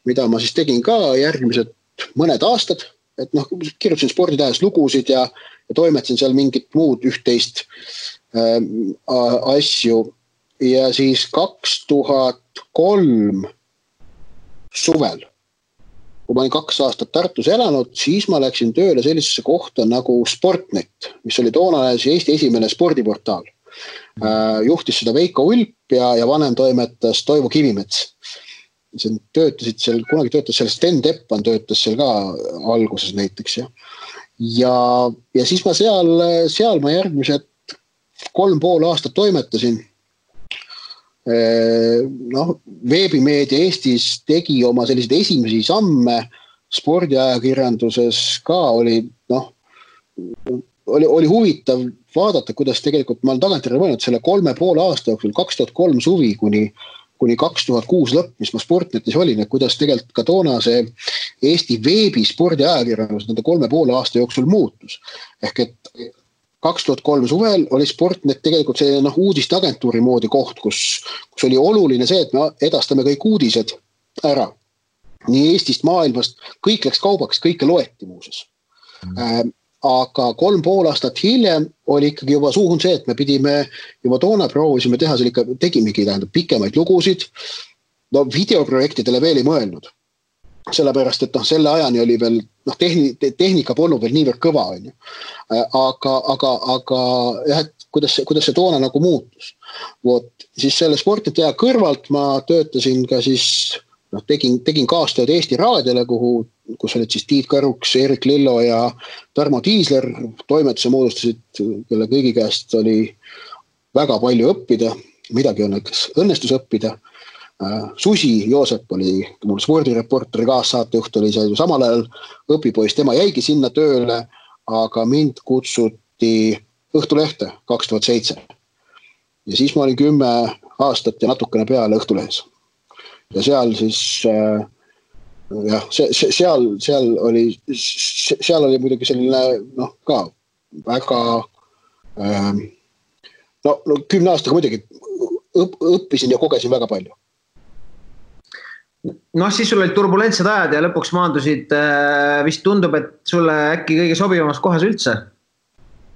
mida ma siis tegin ka järgmised mõned aastad, et kirjutasin Sporditähes lugusid ja toimetasin seal mingit muud üht-teist asju. Ja siis 2003 suvel, kui ma olin 2 aastat Tartus elanud, siis ma läksin tööle sellisesse kohta nagu Sportnet, mis oli toona Eesti esimene spordiportaal. Juhtis seda Veiko Ulp ja vanem toimetas Toivo Kivimets. Töötasid seal, kunagi töötas seal Sten Teppan, töötas seal ka alguses näiteks. Ja siis ma seal ma järgmised 3,5 aastat toimetasin. Veebimeedia Eestis tegi oma selliseid esimesi samme spordiajakirjanduses ka oli huvitav vaadata, kuidas tegelikult ma olen tagantjärele mõelnud selle 3,5 aasta jooksul 2003 suvi kuni 2006 lõpp, mis ma Sportnetis olin, et kuidas tegelikult ka toona see Eesti veebi spordiajakirjandus nende 3,5 aasta jooksul muutus. Ehk et 2003 suvel oli Sportnet tegelikult see uudisteagentuuri moodi koht, kus oli oluline see, et me edastame kõik uudised ära. Nii Eestist, maailmast, kõik läks kaubaks, kõike loeti muuses. Aga 3,5 aastat hiljem oli ikkagi juba suhun see, et me pidime juba toona proovisime teha, tegimegi pikemaid lugusid. Videoprojektidele veel ei mõelnud. Sellepärast, et selle ajani oli veel, tehnika polnud veel niivõrd kõva, on ju. Aga jah, et kuidas see toona nagu muutus. Siis selle Sportneti aja kõrvalt ma töötasin ka siis, tegin kaastööd Eesti Raadiole, kus olid siis Tiit Karuks, Erik Lillo ja Tarmo Tiisler, toimetuse moodustasid, kelle kõigi käest oli väga palju õppida, midagi õnnestus õppida. Susi Joosep oli mul spordireporteri kaassaatejuht, oli see samal ajal õpipoiss, tema jäigi sinna tööle, aga mind kutsuti Õhtulehte 2007. Ja siis ma olin 10 aastat ja natukene peale Õhtulehes. Ja seal siis, seal oli muidugi selline, ka väga, 10 aastaga muidugi õppisin ja kogesin väga palju. Siis sul olid turbulentsed ajad ja lõpuks maandusid, vist tundub, et sulle äkki kõige sobivamas kohas üldse.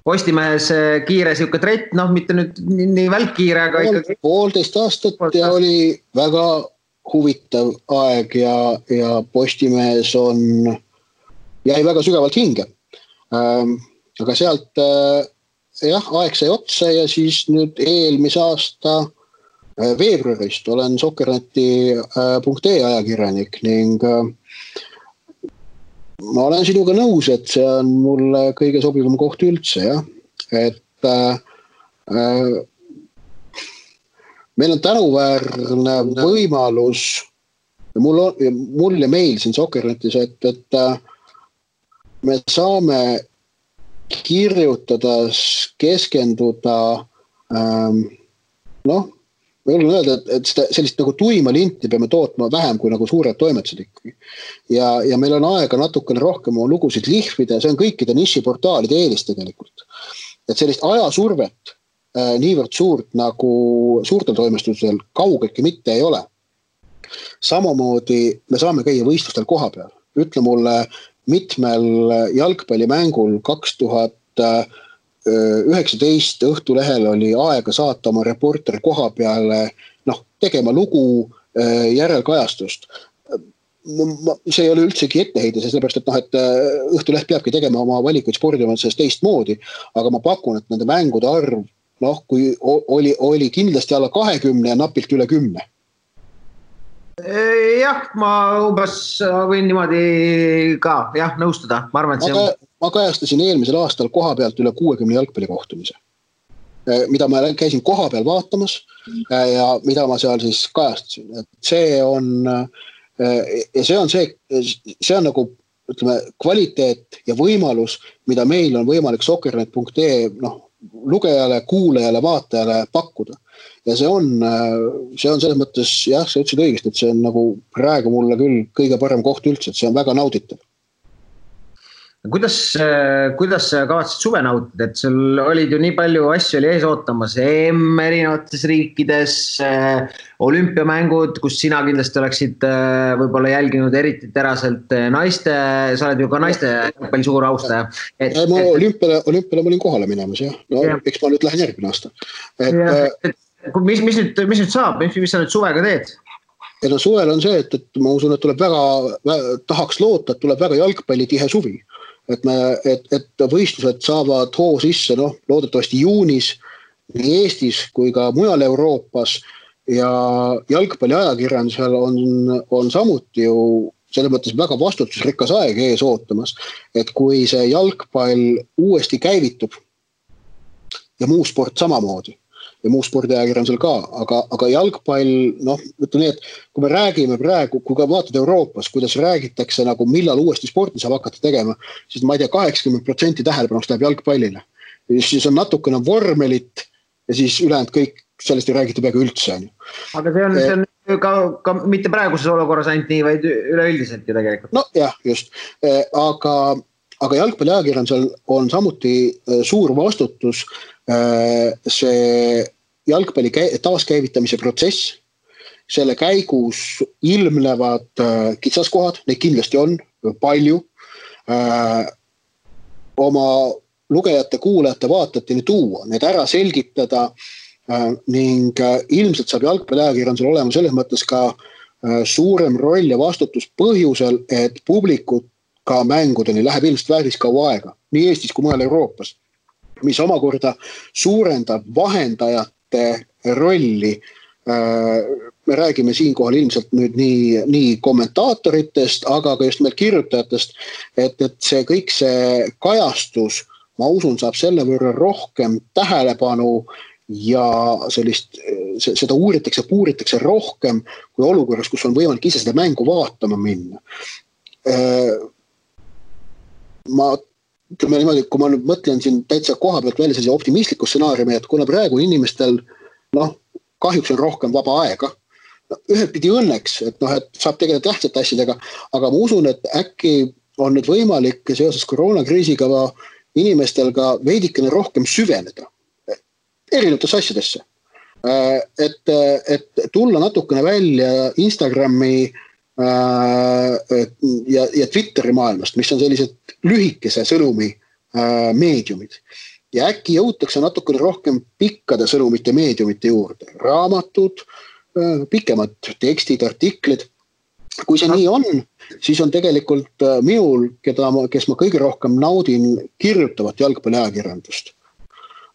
Postimehes kiire siuke trett, mitte nüüd nii välkkiire, aga ikkagi... 1,5 aastat ja oli väga huvitav aeg ja Postimehes jäi väga sügavalt hinge. Aga sealt aeg sai otsa ja siis nüüd eelmise aasta veebruarist olen Sokkerneti.ee ajakirjanik ning ma olen sinuga nõus, et see on mulle kõige sobivam koht üldse, jah. Et meil on tänuväärne võimalus, mul ja meil siin Sokkernetis, et me saame kirjutada, keskenduda, ma julgen öelda, et sellist nagu tuima linti peame tootma vähem kui nagu suured toimetused ikkagi. Ja meil on aega natukene rohkem oma lugusid lihvida, see on kõikide nišiportaalide eelis tegelikult. Et sellist ajasurvet niivõrd suurt nagu suurtel toimestusel kaugeltki mitte ei ole. Samamoodi me saame käia võistlustel koha peal. Ütle mulle mitmel jalgpallimängul 2019 Õhtulehel oli aega saata oma reporteri koha peale, tegema lugu, järelkajastust. See ei ole üldsegi etteheide, sellepärast, et Õhtuleht peabki tegema oma valikuid spordimansest teistmoodi, aga ma pakun, et nende mängude arv, kui oli kindlasti alla 20 ja napilt üle 10. Jah, ma umbes võin niimoodi ka nõustuda. Ma arvan, et see ma kajastasin eelmisel aastal koha pealt üle 60 jalgpallikohtumise, mida ma käisin koha peal vaatamas ja mida ma seal siis kajastasin. Et see on nagu ütleme, kvaliteet ja võimalus, mida meil on võimalik soccernet.ee lugejale, kuulajale, vaatajale pakkuda. Ja see on selles mõttes, jah, sa ütlesid õigesti, et see on nagu praegu mulle küll kõige parem koht üldse, et see on väga nauditav. Kuidas sa kavatsid suve nautida, et sul olid ju nii palju asju oli ees ootamas, EM erinevates riikides, olümpiamängud, kus sina kindlasti oleksid võib-olla jälginud eriti teraselt sa oled ju ka naiste palju suur austaja. Ma olümpiale ma olin kohale minemas, jah. No, eks ma nüüd lähen järgmine aasta. Mis nüüd saab, mis sa nüüd suvega teed? Ja suvel on see, et ma usun, et tuleb tahaks loota, et tuleb väga jalgpallitihe suvi. Et võistlused saavad hoo sisse, loodetavasti juunis nii Eestis kui ka mujal Euroopas ja jalgpalli ajakirjandusel on samuti ju selles mõttes väga vastutusrikas aeg ees ootamas, et kui see jalgpall uuesti käivitub ja muu sport samamoodi ja muu spordiajakirjandusel ka, aga jalgpall, ütleme nii, et kui me räägime praegu, kui ka vaatad Euroopas, kuidas räägitakse nagu millal uuesti sporti saab hakata tegema, siis ma ei tea, 80% tähelepanust läheb jalgpallile. Siis on natukene vormelit ja siis ülejäänud kõik sellest ei räägita peaaegu üldse. Aga see on ka mitte praeguses olukorras ainult nii, vaid üleüldiselt ju tegelikult. No jah, just. Aga jalgpalliajakirjandusel on samuti suur vastutus see jalgpalli taaskäivitamise protsess, selle käigus ilmnevad kitsaskohad, neid kindlasti on palju, oma lugejate, kuulajate, vaatajateni tuua, need ära selgitada ning ilmselt saab jalgpalliajakirjandusel olema selles mõttes ka suurem roll ja vastutus põhjusel, et publikut ka mängudeni läheb ilmselt väärtis kaua aega, nii Eestis kui mujal Euroopas, mis omakorda suurendab vahendajate rolli. Me räägime siinkohal ilmselt nüüd nii kommentaatoritest, aga ka just meil kirjutajatest, et see kõik see kajastus, ma usun, saab selle võrra rohkem tähelepanu ja seda puuritakse rohkem kui olukorras, kus on võimalik ise seda mängu vaatama minna. Ütleme niimoodi, kui ma nüüd mõtlen siin täitsa koha pealt välja sellise optimistliku stsenaariumi, et kuna praegu inimestel kahjuks on rohkem vaba aega, ühelt pidi õnneks, et saab tegeleda tähtsate asjadega, aga ma usun, et äkki on nüüd võimalik seoses koroonakriisiga inimestel ka veidikene rohkem süveneda erinevates asjadesse. Et tulla natukene välja Instagrami ja Twitteri maailmast, mis on sellised lühikese sõnumi meediumid. Ja äkki jõutakse natukene rohkem pikkade sõnumite meediumite juurde. Raamatud, pikemad tekstid, artiklid. Kui see nii on, siis on tegelikult minul, kes ma kõige rohkem naudin kirjutavat jalgpalliajakirjandust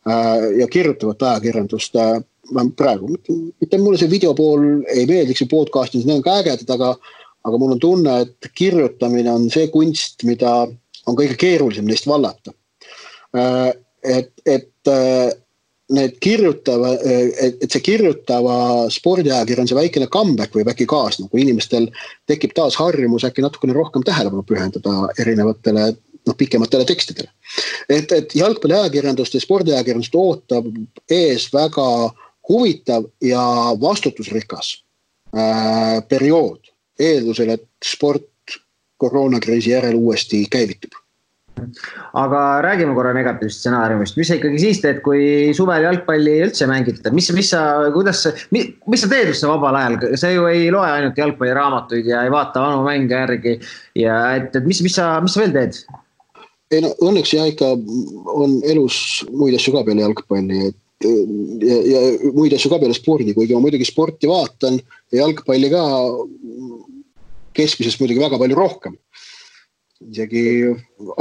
ja kirjutavat ajakirjandust praegu. Mitte mulle see videopool ei meeldiks või podcastis, need on ka ägedad, aga mul on tunne, et kirjutamine on see kunst, mida on kõige keerulisem neist vallata. Et see kirjutava spordiajakirjanduse väikene comeback või äkki kaasna, kui inimestel tekib taas harjumus äkki natukene rohkem tähelepanu pühendada erinevatele pikematele tekstidele. Et jalgpalliajakirjandust ja spordiajakirjandust ootab ees väga huvitav ja vastutusrikas periood eeldusel, et sport koroonakriisi järel uuesti käivitub. Aga räägime korra negatiivsest stsenaariumist. Mis sa ikkagi siis teed, kui suvel jalgpalli üldse mängid? Mis sa teed üldse vabal ajal? Sa ju ei loe ainult jalgpalliraamatuid ja ei vaata vanu mänge järgi. Ja mis sa veel teed? Õnneks ikka on elus muid asju ka peale jalgpalli ja muid asju ka peale spordi, kuigi ma muidugi sporti vaatan ja jalgpalli ka keskmisest muidugi väga palju rohkem. Isegi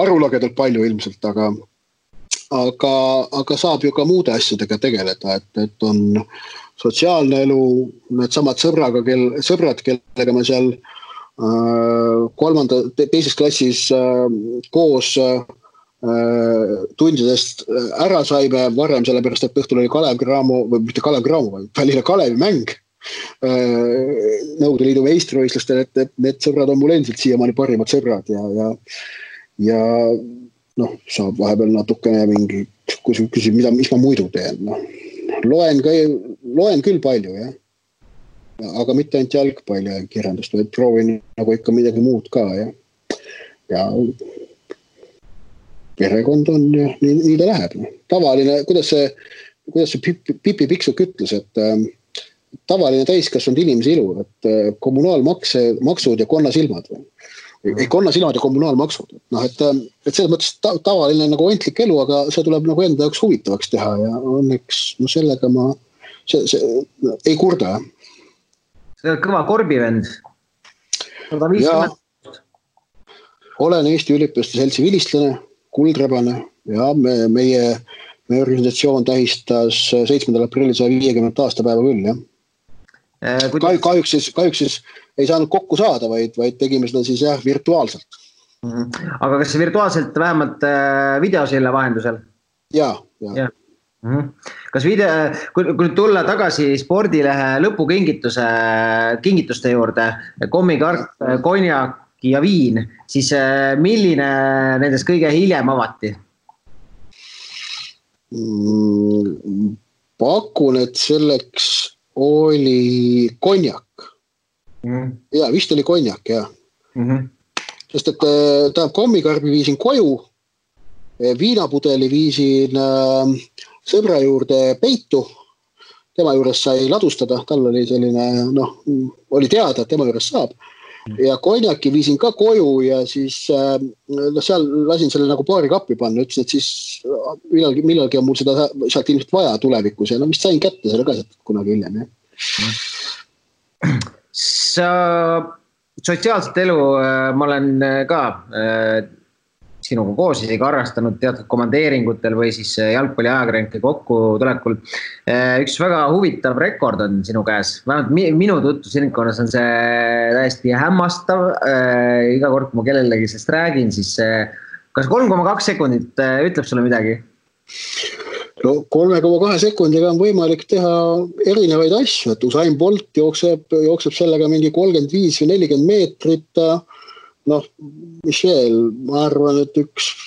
arulagedalt palju ilmselt, aga saab ju ka muude asjadega tegeleda, et on sotsiaalne elu, need samad sõbrad, kellega ma seal teises klassis koos tundidest ära saime varem, sellepärast, et õhtul oli Kalev Cramo, või mitte Kalev Cramo, vaid Tallinna Kalevi mäng Nõukogude Liidu meistrivõistlustel, et need sõbrad on mul endiselt siiamaani parimad sõbrad ja noh, saab vahepeal natukene mingi, kui küsib, mis ma muidu teen, noh. Loen küll palju, jah. Aga mitte ainult jalgpalli ja kirjandust, vaid proovin nagu ikka midagi muud ka, jah. Ja perekond on ja nii ta läheb. Tavaline, kuidas see Pipi Piksuk ütles, et tavaline täiskasvanud inimese ilu, et kommunaalmaksud ja konnasilmad. Ei, konnasilmad ja kommunaalmaksud. No, et selles mõttes tavaline nagu ontlik elu, aga see tuleb nagu enda jaoks huvitavaks teha ja õnneks no sellega ma ei kurda. See on kõva korbivend. Ja, olen Eesti Üliõpilaste Seltsi vilistlane, kuldrebane ja meie organisatsioon tähistas 7. aprillil 150 aastapäeva küll, jah. Kahjuks siis ei saanud kokku saada, vaid tegime seda siis jah, virtuaalselt. Aga kas virtuaalselt vähemalt videosille vahendusel? Jaa. Kas kui tulla tagasi spordilehe lõpukingituste juurde, kommikarp, konjak ja viin, siis milline nendest kõige hiljem avati? Pakun, et selleks oli konjak. Ja, vist oli konjak, jah. Sest et tähendab kommikarbi viisin koju, viinapudeli viisin sõbra juurde peitu, tema juures sai ladustada, tal oli selline, noh, oli teada, et tema juures saab. Ja konjaki viisin ka koju ja siis seal lasin selle nagu paari kappi panna, ütlesin, et siis millalgi on mul seda sealt ilmselt vaja tulevikus ja no vist sain kätte selle ka kunagi hiljem. Sa sotsiaalset elu ma olen ka sinuga koos isegi harrastanud teatud komandeeringutel või siis jalgpalli ajakirjanike kokkutulekul. Üks väga huvitav rekord on sinu käes. Vähemalt minu tutvusringkonnas on see täiesti hämmastav. Iga kord, kui ma kellelegi sellest räägin, siis kas 3,2 sekundit ütleb sulle midagi? No 3,2 sekundiga on võimalik teha erinevaid asju, et Usain Bolt jookseb sellega mingi 35 või 40 meetrit. Noh, mis veel, ma arvan, et üks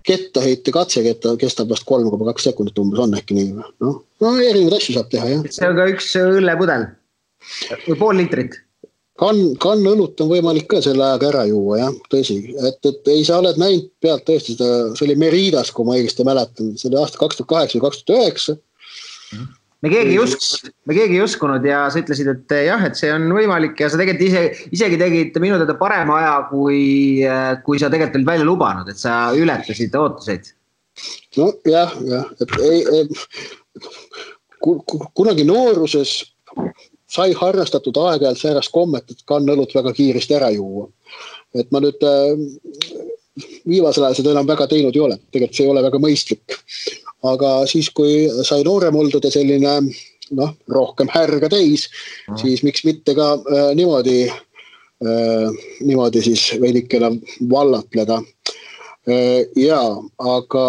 kettaheite katseketta kestab vast 3,2 sekundit umbes on äkki nii. No, erinevaid asju saab teha, jah. See on ka üks õllepudel või pool liitrit. Kann õlut on võimalik ka selle ajaga ära juua, jah, tõsi. Et ei sa oled näinud pealt tõesti seda, see oli Meridas, kui ma õigesti mäletan, see oli aasta 2008 või 2009. Me keegi ei uskunud ja sa ütlesid, et jah, et see on võimalik ja sa tegelikult isegi tegid minu teada parema aja, kui sa tegelikult olid välja lubanud, et sa ületasid ootuseid. No jah, et kunagi nooruses sai harrastatud aeg-ajalt säärast kommet, et kannõlut väga kiiresti ära juua. Et ma nüüd viimasel ajal seda enam väga teinud ei ole, tegelikult see ei ole väga mõistlik. Aga siis, kui sai noorem oldud ja selline rohkem härga täis, siis miks mitte ka niimoodi siis veidikene vallatleda. Aga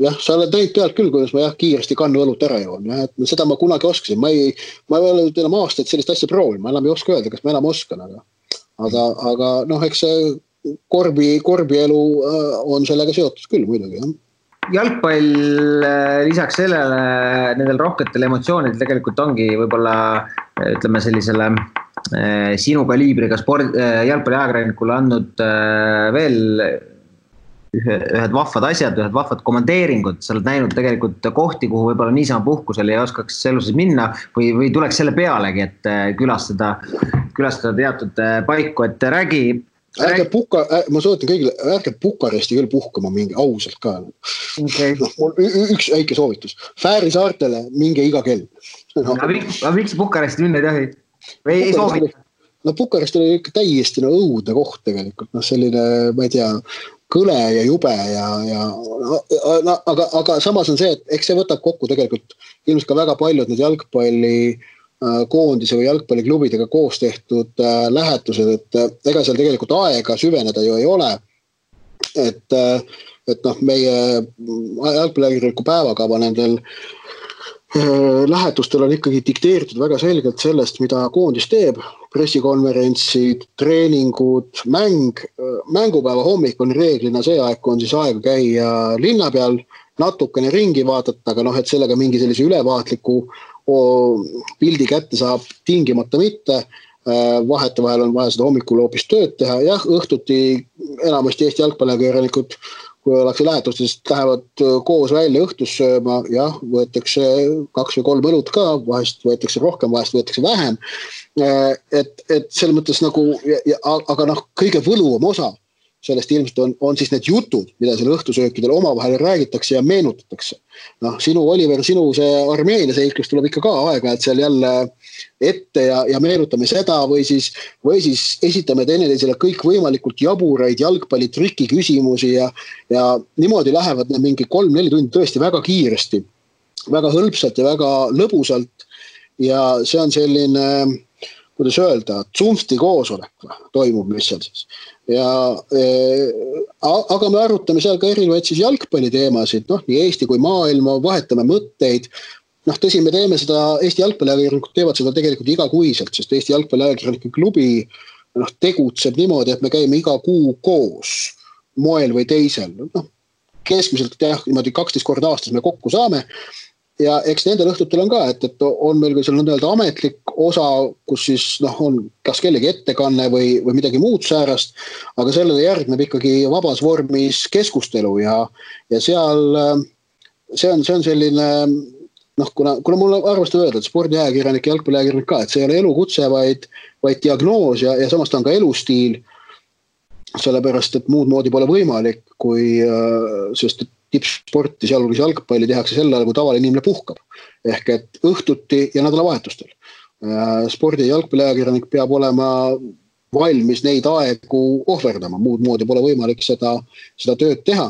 jah, sa oled näinud pealt küll, kuidas ma kiiresti kannu õlut ära joon. Seda ma kunagi oskasin. Ma ei ole enam aastaid sellist asja proovin. Ma enam ei oska öelda, kas ma enam oskan. Aga eks see korbielu on sellega seotud küll muidugi, jah. Jalgpall lisaks sellele nendel rohketel emotsioonidel tegelikult ongi võib-olla ütleme sellisele sinu kaliibriga jalgpalli ajakirjanikule andnud veel ühed vahvad asjad, ühed vahvad komandeeringud. Sa oled näinud tegelikult kohti, kuhu võib-olla niisama puhkusel ei oskaks eluses minna või tuleks selle pealegi, et külastada teatud paiku, et räägi. Ma soovitan kõigile, ärge Bukaresti küll puhkama mingi ausalt ka. Okay. Mul üks väike soovitus. Fääri saartele minge iga kell. Miks Bukaresti minna ei tohi? Või ei soovita? No Bukarest oli ikka täiesti õudne koht tegelikult. Selline, ma ei tea, kõle ja jube aga samas on see, et eks see võtab kokku tegelikult ilmselt ka väga paljud need jalgpalli koondise või jalgpalliklubidega koos tehtud lähetused, et ega seal tegelikult aega süveneda ju ei ole. Et meie jalgpalliajakirjaniku päevakava nendel lähetustel on ikkagi dikteeritud väga selgelt sellest, mida koondis teeb. Pressikonverentsid, treeningud, mängupäeva hommik on reeglina see aeg, kui on siis aega käia linna peal, natukene ringi vaadata, aga et sellega mingi sellise ülevaatliku pildi kätte saab tingimata mitte. Vahetevahel on vaja seda hommikul hoopis tööd teha. Jah, õhtuti enamasti Eesti jalgpalliajakirjanikud, kui ollakse lähetustes, lähevad koos välja õhtus sööma, jah, võetakse 2 või 3 õlut ka, vahest võetakse rohkem, vahest võetakse vähem. Et selles mõttes nagu, aga kõige võluvam osa sellest ilmselt on siis need jutud, mida seal õhtusöökidel omavahel räägitakse ja meenutatakse. Sinu, Oliver, sinu see Armeenia seiklus tuleb ikka ka aega, et seal jälle ette ja meenutame seda või siis esitame teineteisele kõik võimalikult jaburaid jalgpallitriki küsimusi ja niimoodi lähevad need mingi 3-4 tundi tõesti väga kiiresti, väga hõlpsalt ja väga lõbusalt ja see on selline, kuidas öelda, tsumsti koosolek toimub, mis seal siis. Aga me arutame seal ka erinevaid siis jalgpalliteemasid, nii Eesti kui maailma, vahetame mõtteid. Tõsi, me teeme seda, Eesti jalgpalliajakirjanikud teevad seda tegelikult igakuiselt, sest Eesti jalgpalliajakirjanike klubi tegutseb niimoodi, et me käime iga kuu koos moel või teisel. Keskmiselt niimoodi 12 korda aastas me kokku saame. Ja eks nendel õhtutel on ka, et on meil ka seal nõnda ametlik osa, kus siis on kas kellegi ettekanne või midagi muud säärast, aga sellele järgneb ikkagi vabas vormis keskustelu ja seal see on selline, kuna mul arvestab öelda, et spordiajakirjanik ja jalgpalliajakirjanik ka, et see ei ole elukutse, vaid diagnoos ja samas ta on ka elustiil, sellepärast, et muud moodi pole võimalik, sest tippsporti, sealhulgas jalgpalli tehakse sel ajal, kui tavaline inimene puhkab. Ehk et õhtuti ja nädalavahetustel. Spordi- ja jalgpalliajakirjanik peab olema valmis neid aegu ohverdama. Muud moodi pole võimalik seda tööd teha.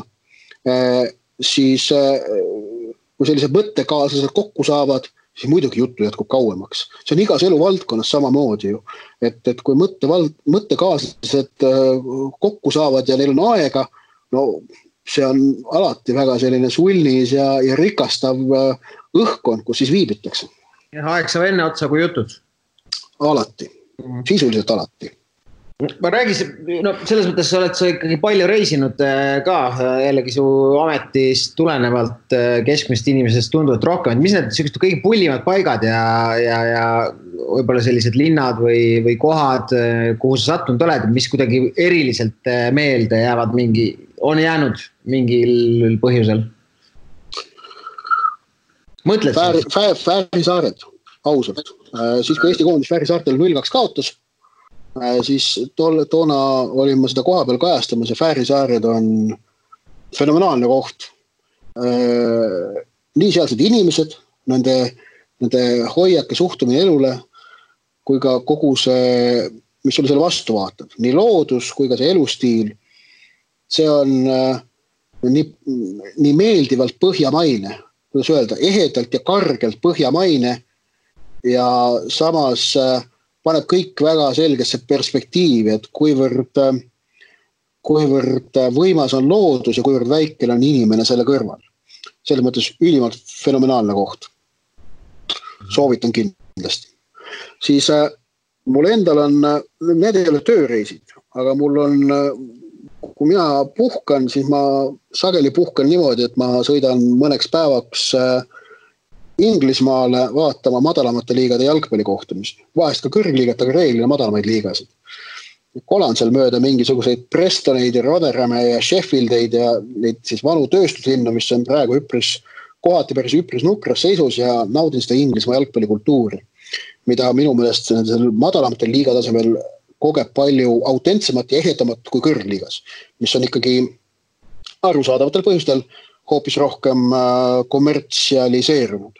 Siis, kui sellised mõttekaaslased kokku saavad, siis muidugi juttu jätkub kauemaks. See on igas eluvaldkonnas samamoodi ju. Et kui mõttekaaslased kokku saavad ja neil on aega, see on alati väga selline sulnis ja rikastav õhkkond, kus siis viibitakse. Ja aeg saab enne otsa kui jutud? Alati. Sisuliselt alati. Ma räägis, selles mõttes oled sa ikkagi palju reisinud ka, jällegi su ametist tulenevalt keskmist inimesest tunduvalt rohkem. Mis need kõige pullimad paigad ja võib-olla sellised linnad või kohad, kuhu sa sattunud oled, mis kuidagi eriliselt meelde jäävad on jäänud mingil põhjusel? Mõtled? Fääri saared, ausalt. Siis kui Eesti koondis Fääri saartel 0-2 kaotas, siis toona olin ma seda koha peal kajastamas ja Fääri saared on fenomenaalne koht. Nii sealsed inimesed, nende hoiak ja suhtumine elule, kui ka kogu see, mis sulle selle vastu vaatab. Nii loodus kui ka see elustiil. See on nii meeldivalt põhjamaine, kuidas öelda, ehedalt ja kargelt põhjamaine ja samas paneb kõik väga selgesse perspektiivi, et kuivõrd võimas on loodus ja kuivõrd väikene on inimene selle kõrval. Selles mõttes ülimalt fenomenaalne koht. Soovitan kindlasti. Siis mul endal on, need ei ole tööreisid, aga mul on kui mina puhkan, siis ma sageli puhkan niimoodi, et ma sõidan mõneks päevaks Inglismaale vaatama madalamate liigade jalgpallikohtumisi. Vahest ka kõrgliigat, aga reeglina madalamaid liigasid. Kolan seal mööda mingisuguseid Prestoneid ja Rotherhame ja Sheffieldeid ja neid siis vanu tööstuslinnu, mis on praegu kohati päris üpris nukras seisus ja naudin seda Inglismaa jalgpallikultuuri, mida minu meelest madalamatel liigatasemel kogeb palju autentsemat ja ehedamat kui kõrgliigas, mis on ikkagi arusaadavatel põhjustel hoopis rohkem kommertsialiseerunud.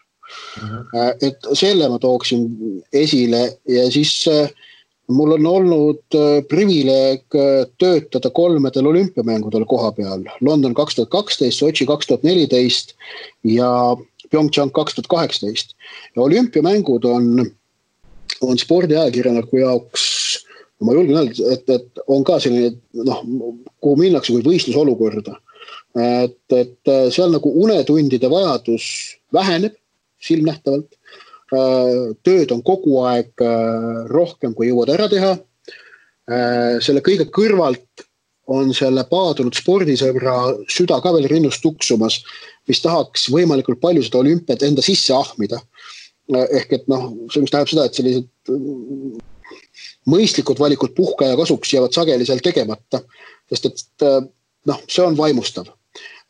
Et selle ma tooksin esile ja siis mul on olnud privileeg töötada 3 olümpiamängudel koha peal. London 2012, Sotši 2014 ja Pyeongchang 2018. Ja olümpiamängud on on spordiajakirjaniku jaoks, ma julgen öelda, et on ka selline, kuhu minnakse kui võistlusolukorda. Et seal nagu unetundide vajadus väheneb silmnähtavalt. Tööd on kogu aeg rohkem, kui jõuad ära teha. Selle kõige kõrvalt on selle paadunud spordisõbra süda ka veel rinnust tuksumas, mis tahaks võimalikult palju seda olümpiat enda sisse ahmida. Ehk et see mis tähendab seda, et sellised mõistlikud valikud puhkaja kasuks jäävad sageli seal tegemata, sest et see on vaimustav.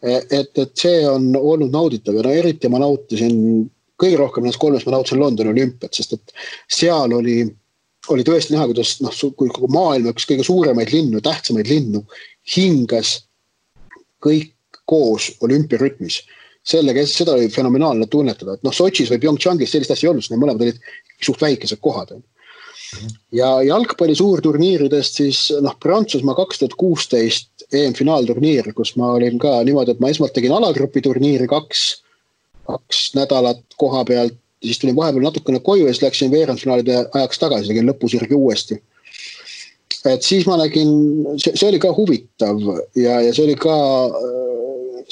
Et see on olnud nauditav ja eriti ma nautisin kõige rohkem näiteks 3 ma nautisin Londoni olümpiat, sest et seal oli tõesti näha, kuidas kui maailma üks kõige suuremaid linnu, tähtsamaid linnu hingas kõik koos olümpiarütmis. Seda oli fenomenaalne tunnetada, et Sotšis või Pyeongchangis sellist asja ei olnud, need mõlemad olid suht väikesed kohad. Ja jalgpalli suurturniiridest siis Prantsusmaa 2016 EM-finaalturniir, kus ma olin ka niimoodi, et ma esmalt tegin alagrupi turniiri 2 nädalat koha pealt, siis tulin vahepeal natukene koju ja siis läksin veerandfinaalide ajaks tagasi, tegin lõpusirgi uuesti. Et siis ma nägin, see oli ka huvitav ja see oli ka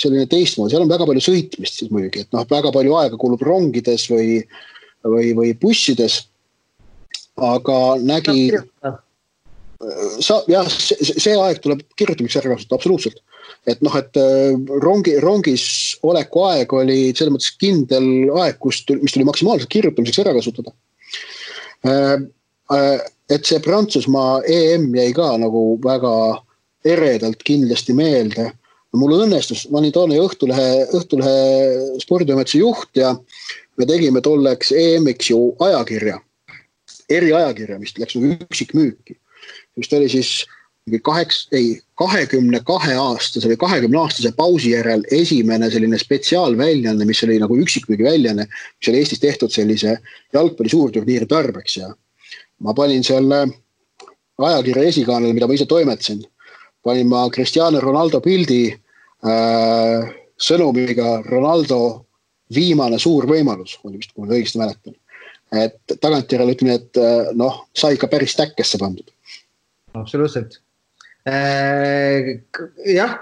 selline teistmoodi, seal on väga palju sõitmist siis muidugi, et väga palju aega kulub rongides või bussides, aga nägi, see aeg tuleb kirjutamiseks ära kasutada, absoluutselt. Et rongis oleku aeg oli selles mõttes kindel aeg, mis tuli maksimaalselt kirjutamiseks ära kasutada. Et see Prantsusmaa EM jäi ka nagu väga eredalt kindlasti meelde. Mul õnnestus, ma olin toona Õhtulehe sporditoimetuse juht ja me tegime tolleks EM-iks ju ajakirja, eriajakirja, mis läks nagu üksikmüüki. Mis oli siis 22 aastase või 20 aastase pausi järel esimene selline spetsiaalväljanne, mis oli nagu üksikmüügi väljanne, mis oli Eestis tehtud sellise jalgpalli suurturniiri tarbeks ja ma panin selle ajakirja esikaanele, mida ma ise toimetasin. Panin ma Cristiano Ronaldo pildi sõnumiga Ronaldo viimane suur võimalus, kui ma õigesti mäletan. Et tagantjärele ütleme, et sai ka päris täkkesse pandud. Absoluutselt. Jah,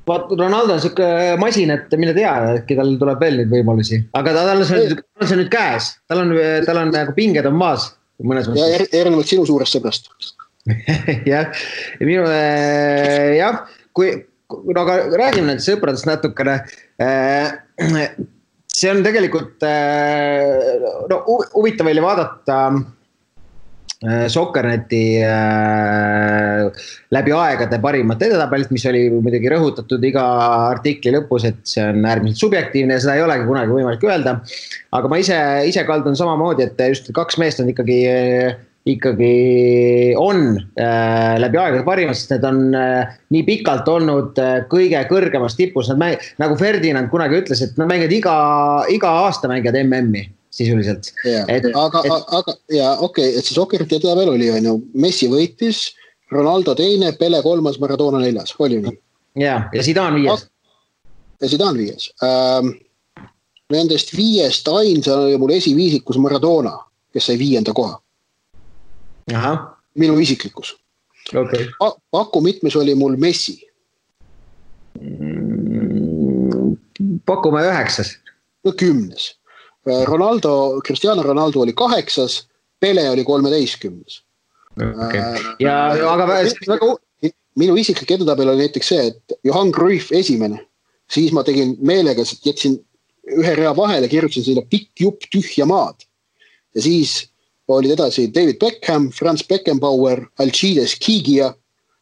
Ronaldo on siuke masin, et mille tea, äkki tal tuleb veel neid võimalusi. Aga tal on see nüüd käes. Tal on nagu pinged on maas. Ja erinevalt sinu suurest sõbrast. Jah, aga räägime nendest sõpradest natukene. See on tegelikult huvitav veel vaadata Sokkerneti läbi aegade parimat edetabelit, mis oli muidugi rõhutatud iga artikli lõpus, et see on äärmiselt subjektiivne ja seda ei olegi kunagi võimalik öelda. Aga ma ise kaldun samamoodi, et just 2 meest on ikkagi on läbi aegade parimad, sest need on nii pikalt olnud kõige kõrgemas tipus. Nad nagu Ferdinand kunagi ütles, et nad mängivad iga aasta mängivad MM-i sisuliselt. Okei, et see Sokkerti edabel oli, Messi võitis, Ronaldo 2, Pele 3, Maradona 4, oli nii? Ja Zidane 5. Ja Zidane 5. Nendest 5 ainsana oli mul esiviisikus Maradona, kes sai 5. koha. Aha. Minu isiklikus. Okay. Paku mitmes oli mul Messi? Pakume 9. 10. Cristiano Ronaldo oli 8, Pele oli 13. Okay. Minu isiklik edetabel oli näiteks see, et Johan Cruyff esimene, siis ma tegin meelega, jätsin ühe rea vahele, kirjutasin sinna pikk jupp tühja maad. Ja siis olid edasi David Beckham, Franz Beckenbauer, Alcides Kigia,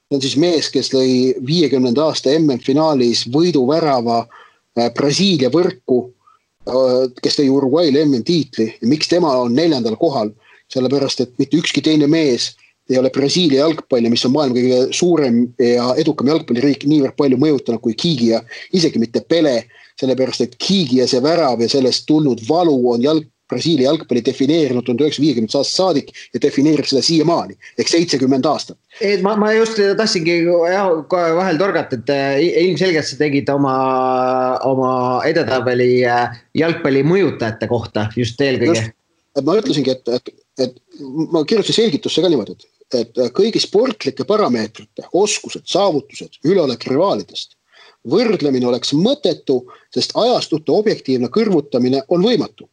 see on siis mees, kes lõi 50. aasta MM-finaalis võiduvärava Brasiilia võrku, kes tõi Uruguay'le MM-tiitli ja miks tema on 4. kohal, sellepärast, et mitte ükski teine mees ei ole Brasiilia jalgpalli, mis on maailma kõige suurem ja edukam jalgpalliriik niivõrd palju mõjutanud kui Kigia, isegi mitte Pele, sellepärast, et Kigia see värav ja sellest tulnud valu on Brasiilia jalgpalli defineerinud 1950 aastast saadik ja defineerib seda siiamaani, ehk 70 aastat. Ma just tahtsingi vahel torgata, et ilmselgelt sa tegid oma edetabeli jalgpalli mõjutajate kohta just eelkõige. Ma ütlesingi, et et ma kirjutasin selgitusse ka niimoodi, et kõigi sportlike parameetrite, oskused, saavutused, üleolek rivaalidest võrdlemine oleks mõttetu, sest ajastute objektiivne kõrvutamine on võimatu.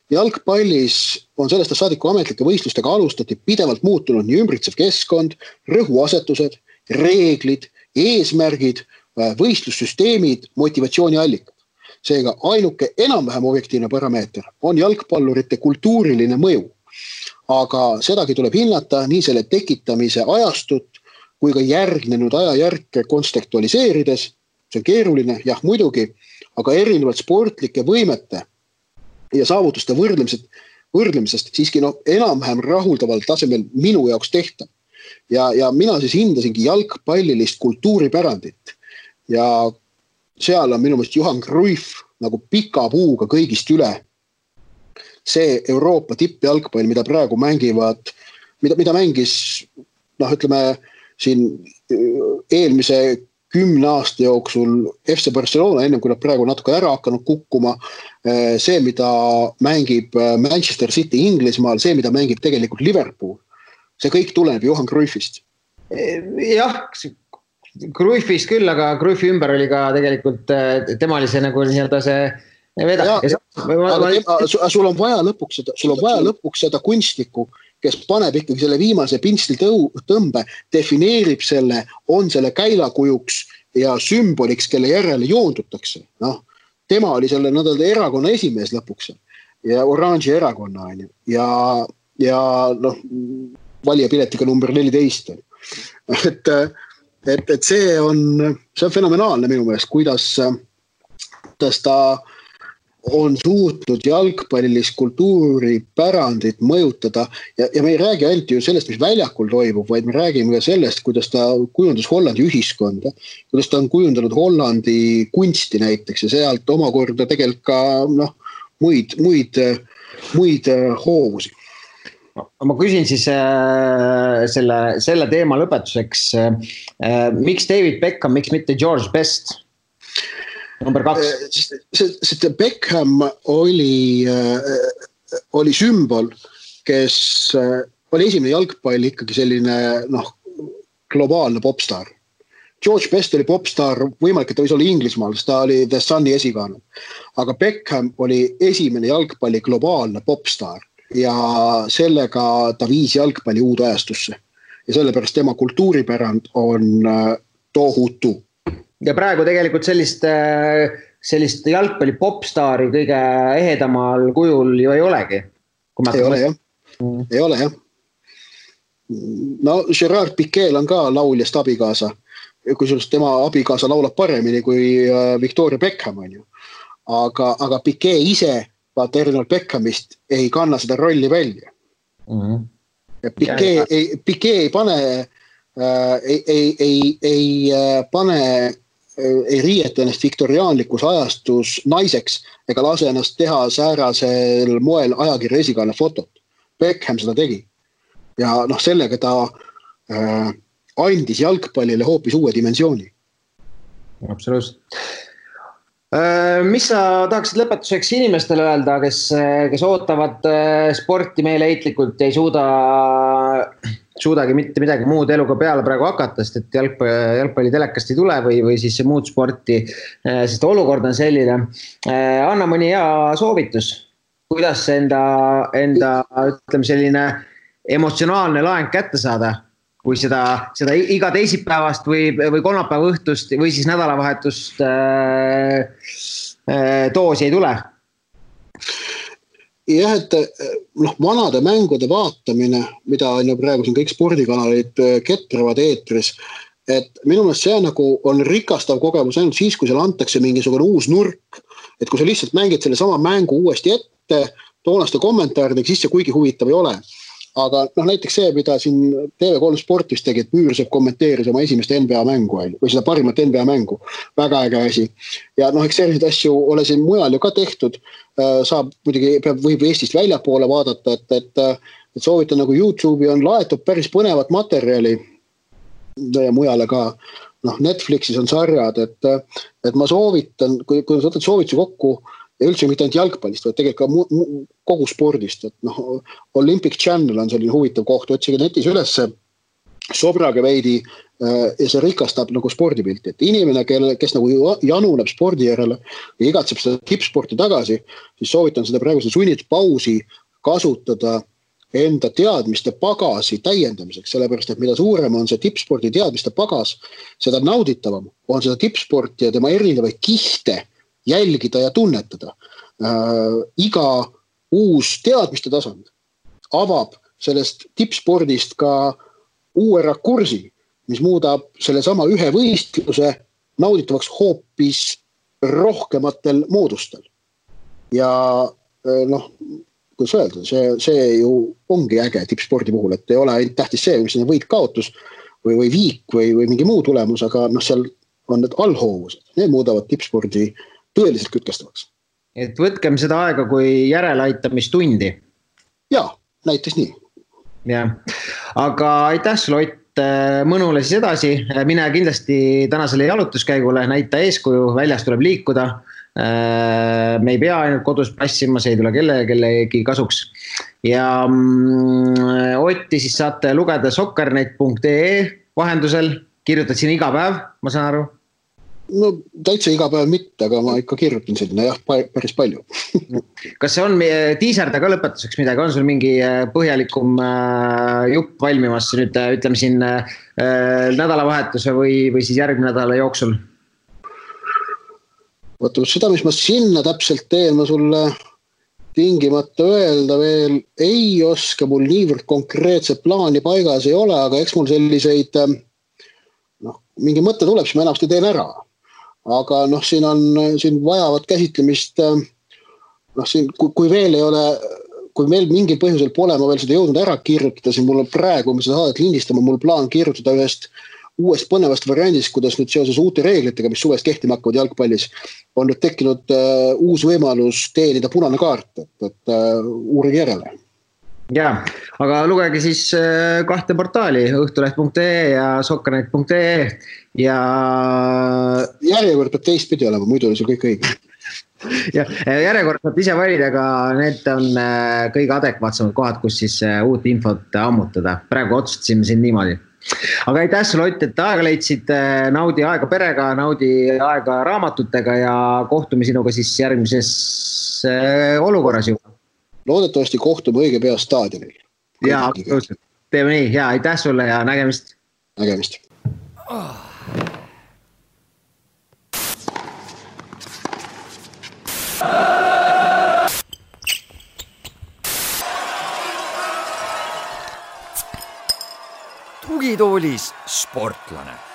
Jalgpallis on sellest saadiku ametlike võistlustega alustati pidevalt muutunud nii ümbritsev keskkond, rõhuasetused, reeglid, eesmärgid, võistlussüsteemid, motivatsiooniallikad. Seega ainuke enam-vähem objektiivne parameeter on jalgpallurite kultuuriline mõju. Aga sedagi tuleb hinnata nii selle tekitamise ajastut kui ka järgnenud ajajärke kontekstualiseerides. See on keeruline, jah muidugi, aga erinevalt sportlike võimete ja saavutuste võrdlemisest siiski enam-vähem rahuldaval tasemel minu jaoks tehtav. Ja mina siis hindasingi jalgpallilist kultuuripärandit ja seal on minu meelest Johan Cruyff nagu pika puuga kõigist üle. See Euroopa tippjalgpall, mida praegu mängivad, mida mängis, ütleme, siin eelmise 10 aasta jooksul FC Barcelona, ennem kui nad praegu natuke ära hakanud kukkuma, see, mida mängib Manchester City Inglismaal, see, mida mängib tegelikult Liverpool, see kõik tuleneb Johan Cruyffist. Jah, Cruyffist küll, aga Cruyffi ümber oli ka tegelikult, tema oli see nagu nii-öelda see vedak. Sul on vaja lõpuks seda kunstnikku, kes paneb ikkagi selle viimase pinsli tõmbe, defineerib selle, on selle käilakujuks ja sümboliks, kelle järele joondutakse. Tema oli selle erakonna esimees lõpuks ja oranži erakonna ja valijapiletiga number 14. Et see on fenomenaalne minu meelest, kuidas ta on suutnud jalgpallilist kultuuripärandit mõjutada ja me ei räägi ainult ju sellest, mis väljakul toimub, vaid me räägime ka sellest, kuidas ta kujundas Hollandi ühiskonda, kuidas ta on kujundanud Hollandi kunsti näiteks ja sealt omakorda tegelikult ka muid hoovusi. Ma küsin siis selle teema lõpetuseks, miks David Beckham, miks mitte George Best? Number 2. Beckham oli sümbol, kes oli esimene jalgpalli ikkagi selline globaalne popstar. George Best oli popstar, võimalik, et ta võis olla Inglismaal, sest ta oli The Sunni esikaane. Aga Beckham oli esimene jalgpalli globaalne popstar ja sellega ta viis jalgpalli uude ajastusse. Ja sellepärast tema kultuuripärand on tohutu. Ja praegu tegelikult sellist jalgpalli popstaari kõige ehedamal kujul ju ei olegi. Ei ole jah. Gerard Piquel on ka lauljast abikaasa. Kui tema abikaasa laulab paremini kui Victoria Beckham on ju. Aga Piquet ise, vaata erinevalt Beckhamist, ei kanna seda rolli välja. Ja Piquet ei pane ei riieta ennast viktoriaanlikus ajastus naiseks ega lase ennast teha säärasel moel ajakirja esikaane fotot. Beckham seda tegi. Ja sellega ta andis jalgpallile hoopis uue dimensiooni. Absoluutselt. Mis sa tahaksid lõpetuseks inimestele öelda, kes ootavad sporti meeleheitlikult ja ei suudagi mitte midagi muud eluga peale praegu hakata, sest et jalgpalli telekast ei tule või siis muud sporti, sest olukord on selline. Anna mõni hea soovitus, kuidas enda ütleme selline emotsionaalne laeng kätte saada, kui seda iga teisipäevast või kolmapäeva õhtust või siis nädalavahetust doosi ei tule? Jah, et vanade mängude vaatamine, mida on ju praegu siin kõik spordikanalid ketravad eetris, et minu meelest see on rikastav kogemus ainult siis, kui seal antakse mingisugune uus nurk, et kui sa lihtsalt mängid selle sama mängu uuesti ette, toonaste kommentaaridega, siis see kuigi huvitav ei ole. Aga näiteks see, mida siin TV3 Sportis tegi, et Müürsepp kommenteeris oma esimest NBA mängu või seda parimat NBA mängu. Väga äge asi. Ja eks selliseid asju ole siin mujal ju ka tehtud. Saab muidugi, võib Eestist väljapoole vaadata, et soovitan nagu YouTube'i on laetud päris põnevat materjali ja mujale ka. Netflixis on sarjad, et ma soovitan, kui sa võtad soovituse kokku, ja üldse mitte ainult jalgpallist, vaid tegelikult ka kogu spordist, et noh, Olympic Channel on selline huvitav koht, otsige netis ülesse, sobrage veidi ja see rikastab nagu spordipilti, et inimene, kes nagu januneb spordi järele ja igatseb seda tippsporti tagasi, siis soovitan seda praeguse sunnitud pausi kasutada enda teadmiste pagasi täiendamiseks, sellepärast, et mida suurem on see tippspordi teadmiste pagas, seda nauditavam on seda tippsporti ja tema erinevaid kihte jälgida ja tunnetada. Iga uus teadmiste tasand avab sellest tippspordist ka uue rakursi, mis muudab selle sama ühe võistluse nauditavaks hoopis rohkematel moodustel. Ja noh, kuidas öelda, see ju ongi äge tippspordi puhul, et ei ole ainult tähtis see, mis on võit-kaotus või viik või mingi muu tulemus, aga noh, seal on need allhoovused, need muudavad tippspordi tõeliselt kütkestavaks. Et võtkem seda aega kui järeleaitamistundi. Jaa, näiteks nii. Ja. Aga aitäh sulle, Ott, mõnule siis edasi. Mine kindlasti tänasele jalutuskäigule, näita eeskuju, väljas tuleb liikuda. Me ei pea ainult kodus passima, see ei tule kellegi kasuks. Ja Otti siis saate lugeda soccernet.ee vahendusel. Kirjutad siin iga päev, ma saan aru? No täitsa iga päev mitte, aga ma ikka kirjutan sinna jah, päris palju. Kas see on tiiserda ka lõpetuseks midagi? On sul mingi põhjalikum jupp valmimas nüüd, ütleme siin nädalavahetuse või siis järgmine nädala jooksul? Vaata, seda, mis ma sinna täpselt teen, ma sulle tingimata öelda veel ei oska, mul niivõrd konkreetset plaani paigas ei ole, aga eks mul selliseid, mingi mõte tuleb, siis ma enamasti teen ära. Aga siin vajavad käsitlemist, kui veel ei ole, kui meil mingil põhjusel pole ma veel seda jõudnud ära kirjutada, siis mul on praegu, me seda saadet lindistama, mul plaan kirjutada ühest uuest põnevast variandist, kuidas nüüd seoses uute reeglitega, mis suvest kehtima hakkavad jalgpallis, on nüüd tekkinud uus võimalus teenida punane kaart, et uurige järele. Ja, aga lugege siis kahte portaali, õhtuleht.ee ja soccernet.ee ja järjekord peab teistpidi olema, muidu oli see kõik õige. Ja järjekord saab ise valida, aga need on kõige adekvaatsemad kohad, kus siis uut infot ammutada. Praegu otsustasime siin niimoodi. Aga aitäh sulle, Ott, et aega leidsid, naudi aega perega, naudi aega raamatutega ja kohtume sinuga siis järgmises olukorras juba. Loodetavasti kohtume õige pea staadionil. Jaa, teeme nii. Ja aitäh sulle ja nägemist. Nägemist. Tugitoolis sportlane.